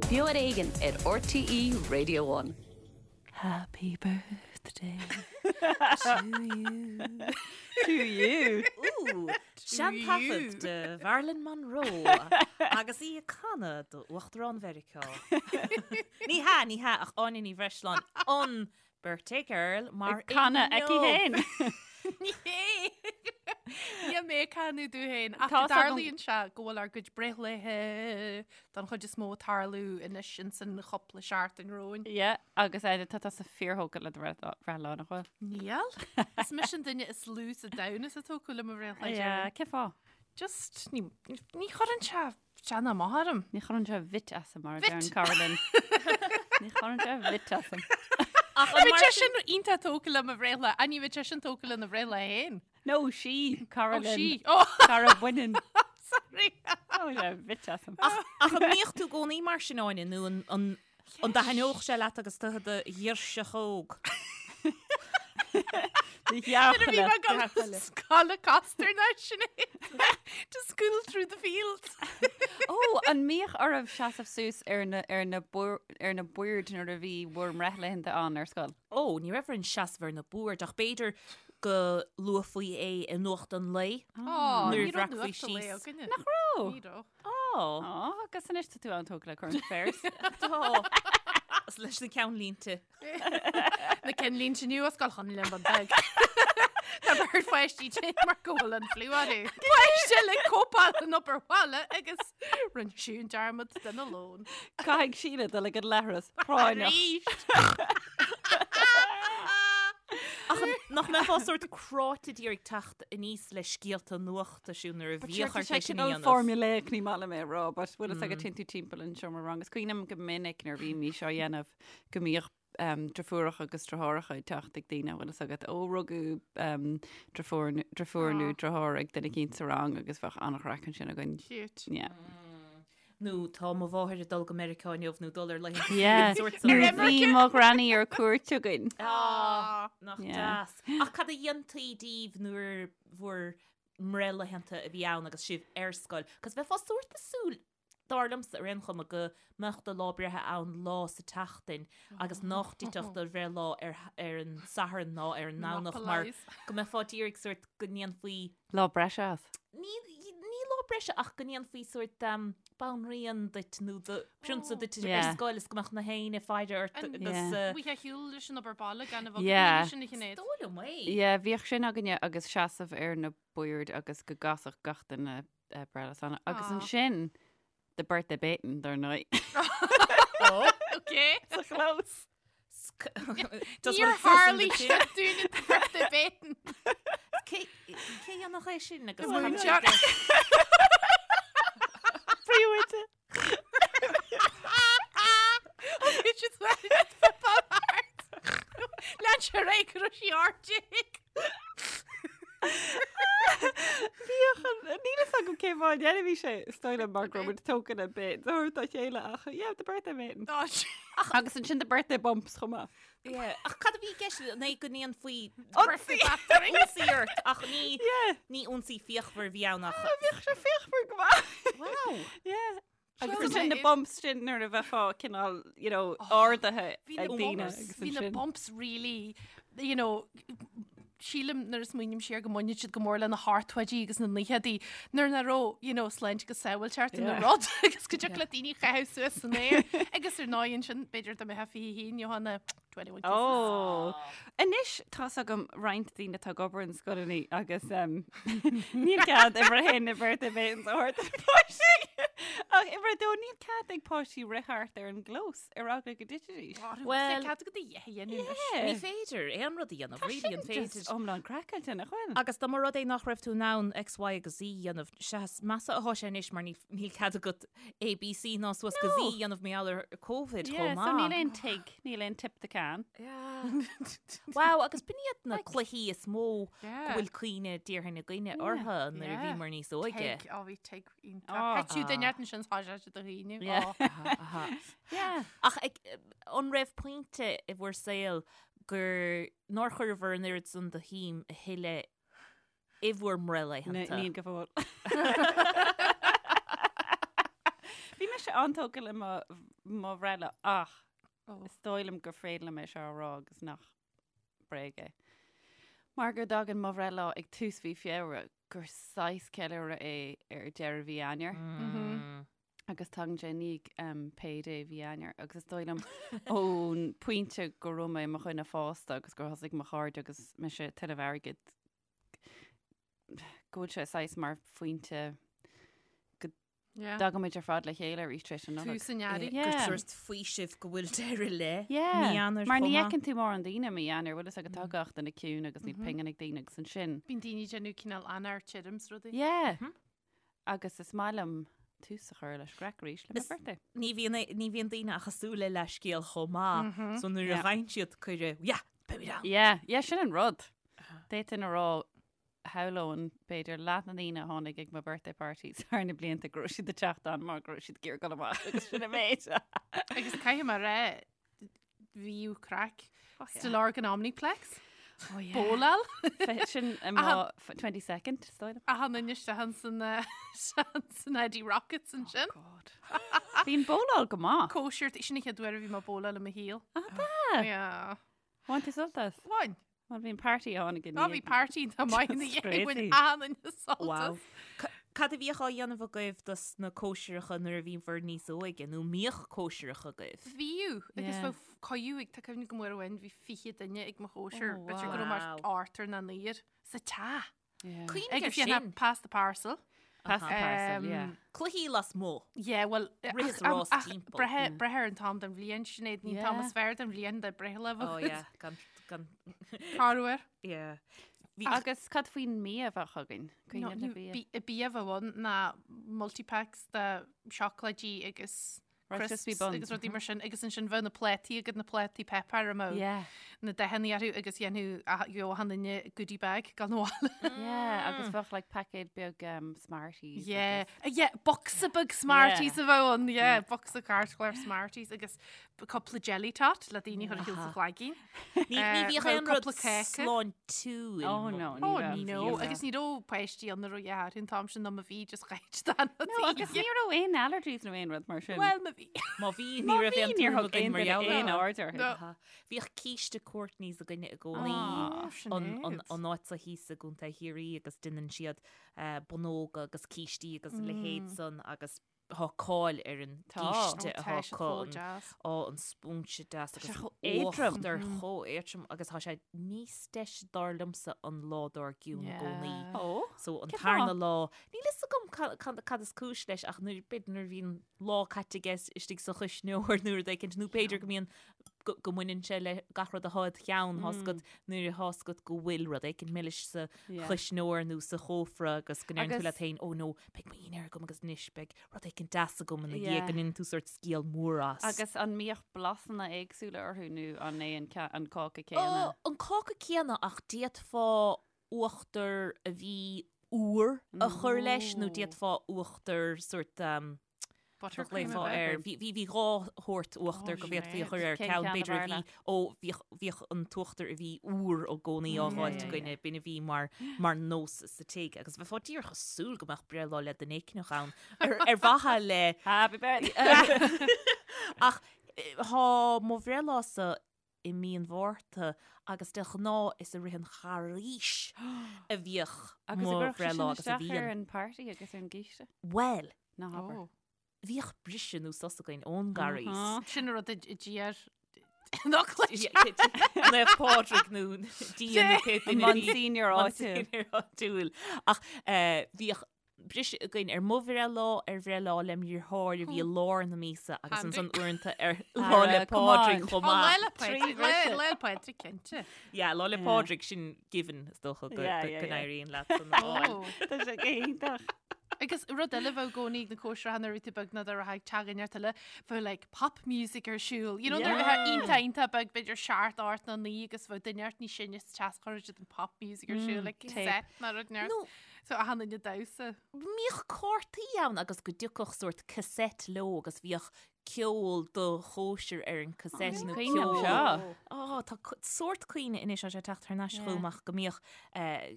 Beo ar Éigean ar RTÉ Radio One. Happy birthday to you. To you. Ooh, seantaifead de Mharilyn Monroe agus í ag canadh do Uachtarán Mheiriceá. Ní hea, ní hea, ach Áine Ní Bhreisleáin, an Birthday girl mar Ag canadh aici inniu. féin. Ní hé. Níl mé ag canadh domh féin ach Tá 's agam- tarlaíonn sé go bhfuil ár gcuid breithlaethe don chuid is mó ag tarlú anois ins an chúpla seachtain romhainn. Yeah, agus Áine, tá tusa fíorthógtha le do bhreithlá, nach bhfuil? Níl. Is mise an duine is lú sa domhan is atá tógtha le mo bhreithlá. Yeah, cén fáth? Just ní ní chuireann sé Déanamh amach orm. Ní chuireann sé bit asam mar a Bit. deir an cara linn. Ní chuireann sé bit asam. Ach an Bhí mar sé sin sin iontach tógtha le mo bhreithlá, ach ní bheadh sé sin tógtha lena bhreithlá féin. No, sí, cara Ó, linn. sí. Ó, Cara baineann. sorry. Ó, sé bit asam. Ach ach an mbíodh tú i gcónaí mar sin, Áine, nó an an An dtaitneodh sé leat agus tú i do ghirseach óg? Nuair a bhí mé ag dul scoil i Castor National to school through the fields. Ó, an mbíodh oraibh seasamh suas ar na, ar na, ar na boird nuair a bhí bhur mbreithlaethanta ann ar scoil? Ó, ní raibh orainn seasamh ar na boird ach b'fhéidir go luafaí é i nuacht an lae. Ó, Nuair ní raibh a bhreacfaí nuacht an lae síos. againne. Nach raibh? Ní raibh. Ó. Ó, agus anois tá tú an-tógtha le current affairs. Tá. Is leis na ceannlínte. Na ceannlínte nua Scoil Chonaill an Bhun Beag. Tá beirt pháistí tinn mar go bhfuil an fliú orthu. Páiste le cóipeáil an obair bhaile agus rinne sí an dearmad dena lón. Caithfidh Síle dul ag an leithreas práinneach. Arís! Ach nach mbeifeá sórt cráite d'iarraidh teacht aníos le scéalta nuachta siúd nuair a But sure, bhíodh tá ort sé é sin a cineál dhéanamh. formulaic, ní maith liom é a rá, but bhfuil fhios agat téann tú timpeall an seomra ranga. Is cuimhin liom go minic nuair a bhímís á dhéanamh go mbíodh um, driofúracha agus driotháireacha ag teacht ag daoine, bhfuil fhios agat, ó rugadh um, driofúr, driofúr nó Aw. driotháir ag duine eicínt sa rang agus bheadh an-chraic ansin againn. Cute. Yeah. Nó tá mo mháthair ag dul go Meiriceá inniu nó dul ar laethanta Yeah. an sórt san. Nuair a bhí mo ghranny ar cuairt againn. Ah, nach Yeah. deas. Ach cad a dhéantaí díbh nuair bhur mbreithlaethanta a bhí ann agus sibh ar scoil? Cos bheifeá sórt ag súil, dar liomsa ar aon chuma, go mbeadh do lá breithe ann lá sa tseachtain agus nach dtitfeadh do bhreithlá ar ar an Satharn ná ar an nDomhnach mar go mbeifeá d'iarraidh sórt go ndéanfaí Lá breise as. Ní ní lá breise ach go ndéanfaí sórt banríon duit nó do prionsa duit ar Yeah. scoil is go mbeadh na héinne ag faire ort An- agus Yeah. Bhí a shiúl leis an obair baile gan a bheith Yeah. sin a Shinéad. Is dóigh liom é. Yeah, bhíodh sin againne agus seasamh ar na boird agus go gcasfadh gach duine eh, Breithlá Sona. Agus Aw. ansin the birthday baiting dar ndóigh. Okay. Sa chlós. Níor tharlaigh sé dúinne the birthday baiting. Cé cé dhéanfadh é sin agus An cad múinteoir. Príomhoide. Bhí siad football art. Lean sé ar aghaidh go raibh sí ard. Bhíodh an níl fhios agam cén fáth a ndéanfaí sé is dóigh liom mar go raibh muid tógtha le bit a thabhairt dá chéile ach yeah the birthday baiting. Agus ansin the birthday bumps chomh maith. Yeah. Ach cad a bhí i gceist an é go ndéanfaí Ionsaí. ionsaí ort ach ní Yeah. ní ionsaí fíochmhar a bhí ann ach Bhíodh sé fíochmhar go maith. Wow. Yeah. Agus Seo ansin na é. bumps sin nuair a bheifeá cineál you know ardaithe Bhí na ag daoine bumps, agus bhí na ansin. bumps really, you know, sílim nuair a smaoiním siar go mbaineann siad go mór le na hochtóidí agus na naochadaí nuair nach raibh, you know, sláinte agus sábháilteacht ina Yeah. rud agus go dtiocfadh le daoine a chaitheamh suas san aer agus ar ndóigh ansin b'fhéidir dá mbeifeá 21 gheofá na 21 kisses. Ó. Anois tá's agam roinnt daoine atá ag obair in scoileanna agus um, níl cead uimhir a haon na birthday baitings a thabhairt do na páistí. Ach uimhir a dó níl cead ag páistí rith thart ar an gclós ar eagla go dtitfidís. Well- cead agat a dhath a dhéanamh anois. Ní féidir aon rud a dhéanamh, really an féidir. Just iomlán craiceáilte nach bhfuil. Agus dá mba rud é nach raibh tú in ann X, Y agus Z a dhéanamh, sea is measa atá sé anois mar níl níl cead agat A, B, C ná suas go Z a dhéanamh mar gheall ar Covid Yeah, chomh so níl maith. aon tig, níl aon tip the can. Wow, agus b'in iad na cluichí is mó go Yeah. bhfuil cuimhne déarfainn againne orthu nuair a Yeah. bhíomar níos óige. Tig, ó bhí tig iontach. Oh. Thit tú duine ort ansin tá sé do dhaoine. Yeah. Oh. Yeah. Ach ag, an raibh pointe i bhur saol gur nár chuireabhair an oiread san de shuim a thuilleadh i bhur mbreithlaethanta? Níl go fóill. Bhí mise an-tógtha le mo mo bhreithlá ach is dóigh liom gur féidir liom é seo a rá agus nach bréag é. Mar go dtagann mo bhreithlá ag tús mhí Feabhra gur saghas ceiliúradh é ar deireadh mhí Eanáir. Agus tagann sé i ndiaidh um, payday mhí Eanáir agus is dóigh liom ón pointe go raibh mé i mo dhuine fásta agus gur thosaigh mo chairde agus mise ag tuilleamh airgid go bhfuil sé saghas mar phointe go Yeah. dtagaimid ar fad le chéile arís tar éis an Nollag. Tús an earraigh. Yeah. Gur sórt faoiseamh go bhfuil deireadh le Yeah. mí Eanáir Mar ní chomh maith. fheiceann tú mórán daoine mí Eanáir, bhfuil fhios agat tá gach duine ciúin agus níl pingin ag daoine agus ansin. Bíonn daoine ag déanamh cineál Eanáir tirim 's rudaí. Yeah. Agus is maith liom tús a chur leis craic arís le mo Is- birthday. Ní bhíonn ní bhíonn daoine ach ag súil le leathscéal chomh maith. So nuair a Yeah. fhaigheann siad cuireadh, yeah, beimid ann. Yeah, yeah, sin an rud. D'fhéadfainn a rá shamhlóinn b'fhéidir leath na ndaoine a tháinig ag mo birthday parties thar na blianta go raibh siad ag teacht ann mar go raibh siad ag iarraidh dul amach agus sin an méid. Agus caithfidh mé a rá bhíodh craic Stillorgan Omniplex. Oh, yeah. Bóláil. Sin i mo 22nd, is dóigh liom. Achan duine isteach san san Eddie Rockets ansin. God. Bhí an bóláil go maith. Cóisir, sin an chéad uair a bhí mé ag bóláil i mo shaol. Ah, tá. Yeah. Bhain tú sult as? Bhain. Bhuel, bhí an party a tháinig i Á, bhí party tá maith ina That's dhiaidh, bhain crazy. achan duine sult Wow. as. Ca- Cad a bhíodh á dhéanamh agaibh dos na cóisireacha nuair a bhíobhair níos óige, nó mbíodh cóisireacha agaibh? Bhíodh, agus Yeah. bheadh coiú ag, tá cuimhne agam uair amháin, bhí 20 duine ag mo chóisir, Oh, b'fhéidir go raibh mé wow. ochtar nó naonúr, sa teach. Yeah. Cuimhnigh ar Agus dhéanfá sin. pass the parcel. Pass the parcel, yeah. Cluichí lasmuigh. Yeah, well, Rith is rás timpeall. Breith breith ar an t-am den bhliain, Sinéad, ní an t-am Yeah. is fearr den bhliain de breithlá Oh yeah, gan, gan, Corruair. yeah. Bhí, Agus cad faoin mbia a bheadh againn? Cuimhne le bia. Bia a bheadh ann ná multipacks de seacláidí agus Rice crisps Krispie buns. agus rudaí mar sin agus ansin bheadh na plátaí agat na plátaí páipéir a mbeadh Yeah. na dathanna orthu agus dhéanfadh gheobhadh achan duine goodie bag gan bhaile. Yeah, agus bheadh like paicéad beag um, Smarties. Yeah, agus- yeah, bocsa beag Smarties Yeah. a bheadh ann, yeah, bocsa cairtchlár Smarties agus cúpla jelly tot le daoine chur a shíl sa chlaigín. Ní ní bhíodh aon rud cúpla cáca. sláintiúil. Oh no, ní Oh raibh. no, Ní raibh. agus ní raibh páistí ann a raibh a an t-am sin ná má bhí just ghaid dan No, agus ní raibh aon allergies nó aon rud mar sin. Well má bhí. Má bhí ní Má raibh bhí, aon níor tuairim thug againn aon mar duine gheall aon air. aird orthu. No. Aha. Bhíodh císte Courtney's againne i gcónaí. Ah, An an an áit seo thíos i gContae Chiarraí agus déanann siad eh, bunnóga agus cístí agus a leithéid san agus Tá cáil ar an gcíste atá acu, an an spúinse deas agus chomh éadrom. uachtar chomh éadrom agus tá sé níos deise dar liomsa an lá dár gcionn i gcónaí. Ó, So an cén tarna fáth? lá, níl fhios agam cad is cúis leis ach nuair, b'fhéidir nuair a bhíonn lá caite aige istigh sa chuisneoir nó rud éicint nó b'fhéidir go mbíonn go mbaineann sé le gach rud atá id cheann, tá's agat nuair atá fhios agat go bhfuil rud éicint milis sa chuisneoir nó sa chófra agus go ndeireann tú leat féin, oh no, beidh mo dhinnéar agam agus anois beidh rud éicint deas agam ina dhiaidh, go ndéanann tú sórt scéal mór as. Agus an mbíodh blasanna éagsúla orthu nó an é an cáca céanna? Ó, an cáca céanna ach d'fhéadfá uachtar a bhí úr a chur leis nó d'fhéadfá uachtar sórt Buttercream Ghlaofá air. Bhí bhí bhí dhá shórt uachtar go bhféadfaí a chur air. Cén Ceann ceann ab b'fhéidir a fhearr bhí leat? ó bhíodh bhíodh an t-uachtar a bhí úr i gcónaí á dh'fháilt againne. B'in a bhí mar mar nós sa tigh agus bheifeá díreach ag súil go mbeadh breithlá le duine éicneach ann ar ar mhaithe le Happy birthday! Ach thá mo bhreithlá-sa i mí an Mhárta agus de ghnáth is i rith an Charghais a bhíodh Agus mo a gcuirfeadh sé bhreithlá sin agus a isteach ar bhíonn. an party agus ar an gcíste? Bhuel, Ná habair. Oh. bhíodh briseadh nó sos againn ón gCarghas. Sin an rud a d'iarr nó cluis. Naomh Pádraig nó Dia nó pé An duine a bhí- Monsignor áitiúil. Monsignor áitiúil. Ach eh, bhíodh briseadh againn ar mo bhreithlá, ar bhreithlá lem dheartháir a bhí i lár na míosa agus ansan uaireanta ar Lá 'le Pádraig chomh Lá maith. 'le Pádraig, Lá 'le Pádraig cinnte. Yeah, Lá 'le Pádraig sin given is dócha go n-éiríonn leat san a fháil. Tá sé go hiontach. Agus rud eile bheadh i gcónaí ag na cóisireacha nuair a bhí tú beag ná dá raibh ag teacht neart eile, bheadh like pop music ar siúl. You know, nuair a bheadh iontach iontach beag b'fhéidir seacht, ocht nó naoi agus bheadh duine ort níos sine sa teach chuirfeadh siad an pop music ar siúl like cassette nó rud neart. So achan duine ag damhsa. Bhíodh cártaí ann agus go dtiocfadh sórt cassette leo agus bhíodh ceol do chóisir ar an cassette nó Cuimhin liom ceol. seo. Ó, tá sórt cuimhne anois tá sé ag teacht thar n-ais chugam ach go mbíodh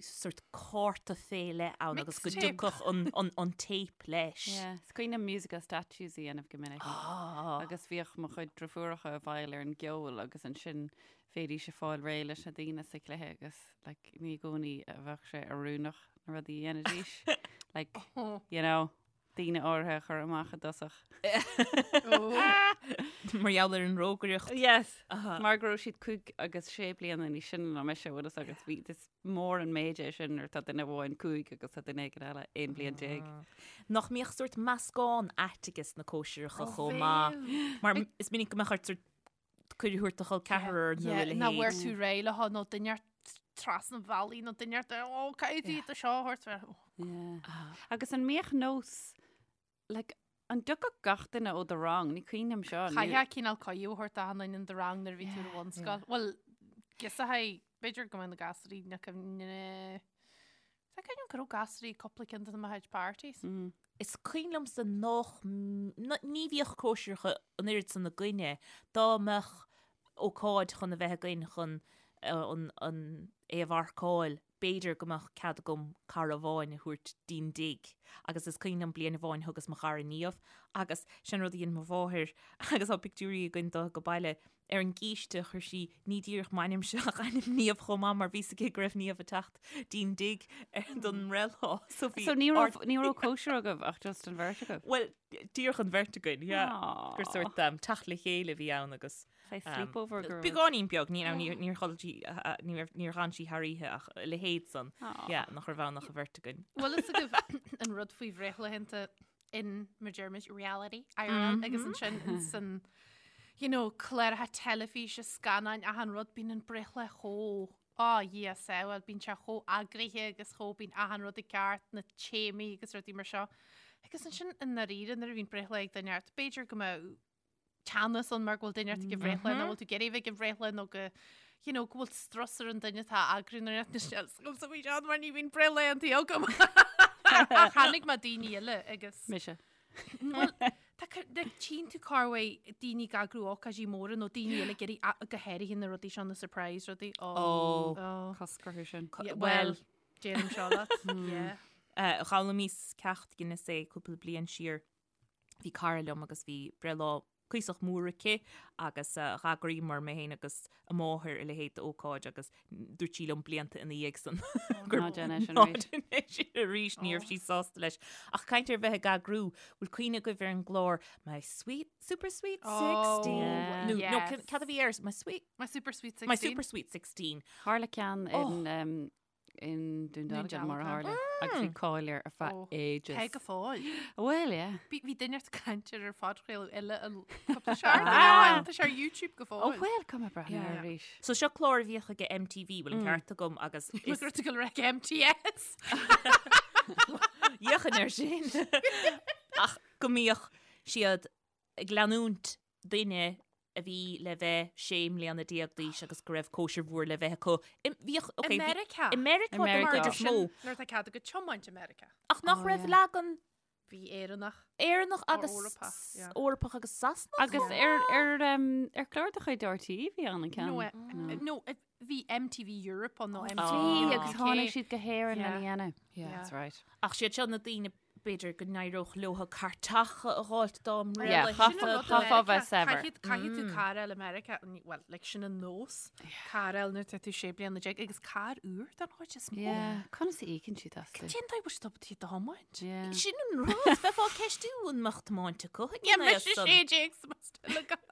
sórt cárta fé leith ann agus go Mixtape. dtiocfadh an, an, an tape leis. Yeah, Is cuimhin liom musical statues a dhéanamh go minic. Ah. Agus bhíodh mo chuid driofúracha i bhfeighil ar an gceol agus ansin bhéidís ag fáil réidh leis na daoine sa chluiche agus like, ní i gcónaí a bheadh sé oiriúnach na rudaí a dhéanaidís. Like, you know, daoine áirithe a chur amach i dtosach. Mar gheall ar an rógaireacht. Yes. Mar go raibh siad cúig agus sé bliana níos sine ná mise bhfuil fhios agat bhí is mór an méid é sin nuair tá duine amháin cúig agus tá duine éigin eile 11 bliain. Nach mbíodh sórt meascán ait ages na cóisireacha chomh maith. Mar is minic go mbeadh ort sórt cuireadh a thabhairt do chol ceathrar nó a leithéid. Nach bhfuair tú réidh le nó duine trasna an bhealaigh nó duine ó caithfidh tú seo a thabhairt. Agus an mbíodh nós like, an dtiocfadh gach duine ó do rang, ní cuimhin liom seo. Chaithfeá cineál cuireadh a thabhairt d'achan duine in do rang nuair a bhí tú ar bhunscoil. Bhuel, giosachaidh, b'fhéidir go mbeadh na gasúirí na cuimhne Tá cuimhin liom go raibh gasúirí cúpla ceann de mo chuid parties. Is cuimhin liomsa nach, ní bhíodh cóisireacha an oiread san againne, dá mbeadh ócáid chun a bheith againn chun an, é a mharcáil, b'fhéidir go mbeadh cead agam cara amháin a thabhairt dtí'n dtigh. Agus is cuimhin liom bliain amháin thugas mo chara Niamh agus sin rud a dhein mo mháthair agus tá pictiúirí againn de go baile Ar an gcíste chuir sí ní díreach m'ainmse ach ainm Niamh chomh maith mar bhí 's aici go raibh Niamh ag teacht dtí'n dtigh don mbreithlá. So bhí So ní raibh ní raibh cóisir agaibh ach just an bheirt agaibh? Bhuel, díreach an bheirt againn, yeah. Gur sórt um, teacht le chéile a bhí ann agus Saghas sleepover go raibh. Beagáinín beag, ní níor níor chodlail sí níor níor dh'fhan sí thar oíche ach a leithéid san. Yeah, nach raibh ann ach an bheirt againn. Bhfuil fhios agaibh an rud faoi bhreithlaethanta in mar deirimid reality IRL agus ansin in san you know cláracha teilifíse scannáin achan rud bíonn an breithlá chomh á Dhia sábháil bíonn sé chomh eagraithe agus chomh bíonn achan rud i gceart na téamaí agus rudaí mar seo agus ansin i ndáiríre nuair a bhíonn breithlá ag duine ort b'fhéidir go mbeadh teannas ann mar go bhfuil duine ort ag an bhreithlá nó bhfuil tú ag iarraidh bheith ag an bhreithlá nó go you know, go bhfuil strus ar an duine atá ag eagrú nó na sels faoi seo mar ní bhíonn breithlaethanta agam. Ach chonaic mé daoine eile agus Mise. Bhuel, tá tchíonn tú corruair daoine ag eagrú ócáidí móra nó daoine eile ag iarraidh go háirithe na rudaí seo na surprise rudaí. Ó. Ó. Cosc orthu sin. Bhuel, déanaim seo leat. Yeah. D'fhoghlaimíos ceacht Guinness é cúpla bliain siar. Bhí cara liom agus bhí breithlá cuíosach mór aici agus dh'eagraíomar, mé féin agus a máthair, a leithéid d'ócáid agus dúirt sí liom blianta ina dhiaidh san gur Ná déan é sin ná arís. déan é sin arís, ní raibh sí sásta leis. Ach caint ar bheith ag eagrú, bhfuil cuimhne agaibh ar an gclár My Sweet, Super Sweet Oh, 16? Nó, nó yes. cad a bhí air? My Sweet, My Super Sweet 16. My Super Sweet 16. Tharla ceann in um, in Dún Dealgan mar a tharla agus bhí cáil air ar feadh ages. Tá go fóill. Bhuel, yeah. Bhí bhí duine ag caint air ar phodchraoladh eile an cúpla seachtain ó shin. Tá sé ar YouTube go Ó fóill. bhuel, caithfidh mé breathnú air arís. So seo clár a bhíodh ag MTV, bhfuil an ceart agam agus Is gur tú go raibh MTS. Dhéanfainn air sin. Ach go mbíodh siad ag leanúint duine a bhí le bheith 16 mbliana d'aois agus go raibh cóisir mhór le bheith acu. I, bhíodh, okay, I Meiriceá. I Meiriceá I den Meiriceá. chuid is mó. Nuair atá cead agat tiomáint i Meiriceá. Ach nach Oh, raibh yeah. leagan Bhí Éireannach. Éireannach agus Eorpach, yeah. Eorpach agus Sasanach. Agus ar, ar, um, ar chlár de chuid RTÉ bhí ann an ceann. No, eh, no, eh, bhí MTV Europe ann nó MTV Bhí, agus UK. tháinig siad go hÉirinn Yeah. lena dhéanamh. Yeah. That's right. Ach siad seo na daoine B'fhéidir go n-éireodh leo cairteacha a dh'fháilt dá Yeah, mbreithlaethanta. chaithfeá- chaithfeá bheith saibhir. Caithfidh caithfidh tú carr a fháil i Meiriceá, bhuel, like, sin an nós, carr a fháil nuair atá tú 16 bliana agus carr úr don chuid is mó. Yeah, conas a íocann siad astu? Cén dóigh bhfuil siad ábalta iad a thiomáint? Yeah. Sin an rud, bheifeá ag ceistiú an mbeadh tiomáint acu ag Yeah, an mise aos san. 16 sa still agam.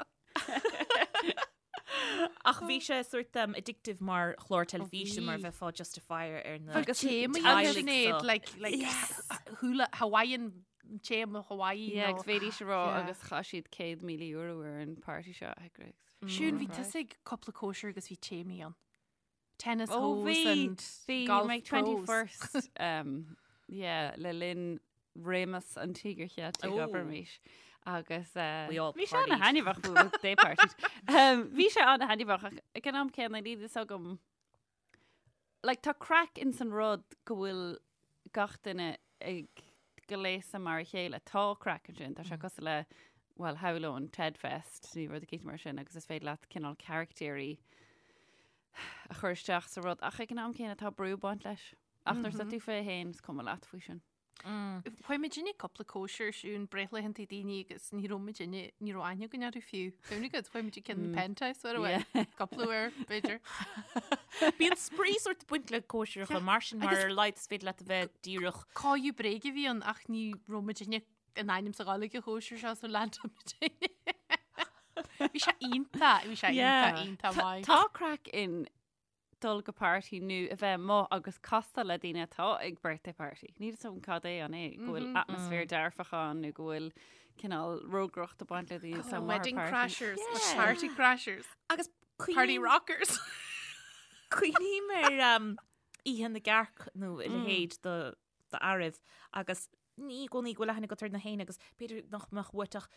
Ach bhí sé sort um, addictive mar chlár teilifíse mar bheifeá just ag faire ar na Agus téamaí teaghlaigh Sinéad, so. like, like, hula, Hawaiian, téama Hawaii. Yeah, nó- agus bhéidís a rá Yeah. agus chaith siad €100,000 ar an party seo a eagrú. Siún, bhí tusa ag cúpla cóisir agus bhí téamaí ann. Tennis Ó holes bhí, and bhí golf my pros. 21st, um, yeah, le linn réimeas an Tíogair Cheiltigh Ó. abraimis. Agus eh, We all bhí sé partied. an-thaitneamhach well, they partied. Um, bhí sé an-thaitneamhach ach ag an am céanna níl fhios agam like, tá craic in san rud go bhfuil gach duine ag gléasadh mar a chéile. Tá craic ansin, tá sé cosúil le. bhuel, shamhlóinn Ted Fest nó rud eicínt mar sin agus is féidir leat cineál caractéirí a chur isteach sa rud ach ag an am céanna tá brú ag baint leis. Ach nuair atá tú fé fhéin is cuma leat faoi sin. Chuaigh muidinne cúpla cóisir siún breithlaethanta daoine agus ní raibh muidinne, ní raibh aithne againn orthu fiú. Cuimhnigh agat, chuaigh muid ag ceann penthouse uair amháin, cúpla uair, b'fhéidir. Bíonn spraoi sórt ag baint le cóisireacha mar sin mar ar a laghad is féidir leat a bheith díreach. Cóisireacha bréige a bhí ann ach ní raibh muidinne in ainm is a ghabháil ag an chóisir seo so lean muidinne. Bhí sé iontach, bhí sé iontach, iontach maith. Tá craic in dul go party nó a bheith amuigh agus castáil le daoine atá ag birthday party. Níl fhios agam cad é an é, go bhfuil atmaisféar dearfach ann nó go bhfuil cineál rógaireacht ag baint le daoine atá amuigh ar Wedding party. crashers, Yeah. party crashers, Agus party cuimhním rockers. cuimhním ar um, Oíche na gCearc nó a leithéid do d'fhearaibh agus ní i gcónaí go bhfuil aithne agat ar na héinne agus b'fhéidir nach mbeadh uait ach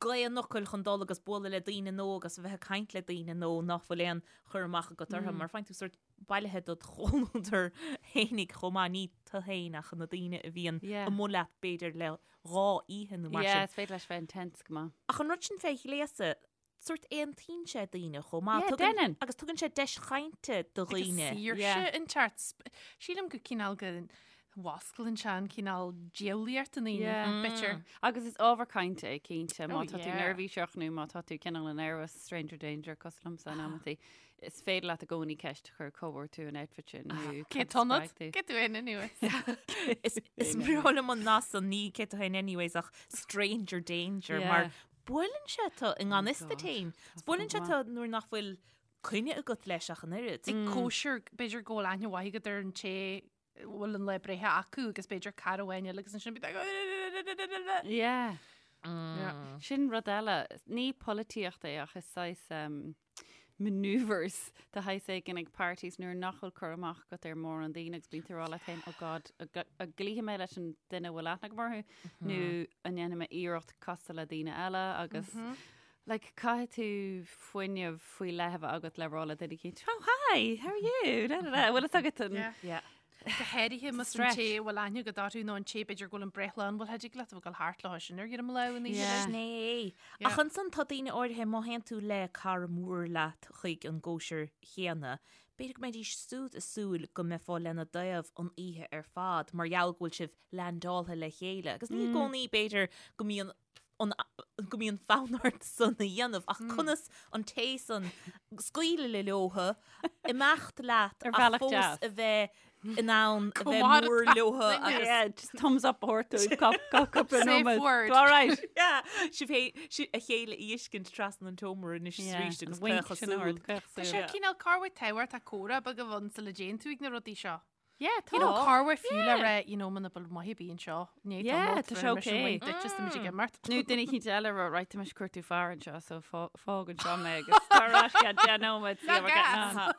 gaoth an fhocail chun dul agus bualadh le daoine nó agus a bheith ag caint le daoine nó nach bhfuil aon chur amach agat orthu mar faigheann tú sórt bailithe dod chomhluadar fhéinig chomh maith, ní tu féin ach na daoine a bhíonn amuigh leat b'fhéidir le dhá oíche nó mar Yeah, sin. is féidir leis bheith intense go maith. Ach an rud sin fé ghléasadh, sórt aontaíonn sé daoine chomh maith. Yeah, déanann. Agus tugann sé deis chainte do dhaoine. Agus saoirse inteacht. Sílim go cineál go bhfosclaíonn sé an cineál diabhlaíocht i ndaoine, b'fhéidir. Agus is ábhar cainte é cinnte, má Oh, tá tú yeah. neirbhíseach nó má tá tú cineál nervous, stranger danger, cosúil liomsa in amantaí, is féidir leat i gcónaí ceist a chur cá bhfuair tú an outfit sin nó Cé cad a tonad? spreag tú. Cé tú fhéin anyways? Is is breá liom an nath san ní cé tú fhéin anyways ach stranger danger Yeah. mar buaileann sé tu i ngan fhios Oh duit God, fhéin. tá Buaileann sé go tu nuair nach bhfuil coinne agat leis ach an oiread. Ag cóisir, b'fhéidir go bhfuil aithne mhaith agat ar an té bhfuil an lá breithe acu agus b'fhéidir cara amháin eile agus ansin bíonn like Yeah. Yeah. Sin rud eile, ní polaitíocht é ach is saghas um, maneuvers de shaghas éigin ag parties nuair nach bhfuil cur amach agat ar mórán daoine agus bíonn tú ag rá leat féin, oh God, an gcloífidh mé leis an duine a bhfuil aithne agam orthu nó an ndéanfaidh mé iarracht castáil le daoine eile agus Like, caithfidh tú fuinneamh faoi leith a bheith agat le rá le duine eicínt, oh hi, how are you? Da, da, da. Bhfuil fhios agat an... Yeah. Yeah. Go háirithe más an Stretch. té a bhfuil aithne agat orthu nó an té b'fhéidir go bhfuil an breithlá ann, bhfuil thig leat a bheith ag dul thart leo sin ar dhroim lámh an oíche. Yeah. Sin é. Yeah. Ach ansan tá daoine áirithe má théann tú le cara mór leat chuig an gcóisir chéanna, b'fhéidir go mbeidís siúd ag súil go mbeifeá lena dtaobh an oíche ar fad mar gheall go bhfuil sibh leaindeáltha le chéile. Agus ní i gcónaí b'fhéidir go mbíonn an go mbíonn fonn ort san a dhéanamh ach conas an té san scaoileadh le leotha, imeacht leat Ar ach bhealach fós deas. a bheith in ann a bheith Comh mór leotha agus Yeah, just thumbs up a thabhairt dóibh cúpla Safe nóiméad. word. All right. Yeah, sibh hé- si- a chéile a fheiscint trasna an tseomra anois is arís agus wink caoch sin a súl. thabhairt, caoch Tá súl. sé cineál corruair tábhachtach comhrá beag a bheith ann sula dtéann tú ag na rudaí seo. Yeah, tá. You know, corruair fiú le rá, you know, muna bhfuil maith ar bith anseo, ní Yeah, tá sé okay. Duit just muid ag imeacht. Nó duine eicínt eile rá, right, tá mise ag cuartú fear anseo, so fág anseo mé agus tar ar ais ceann 10 nóiméad, see how we're getting on.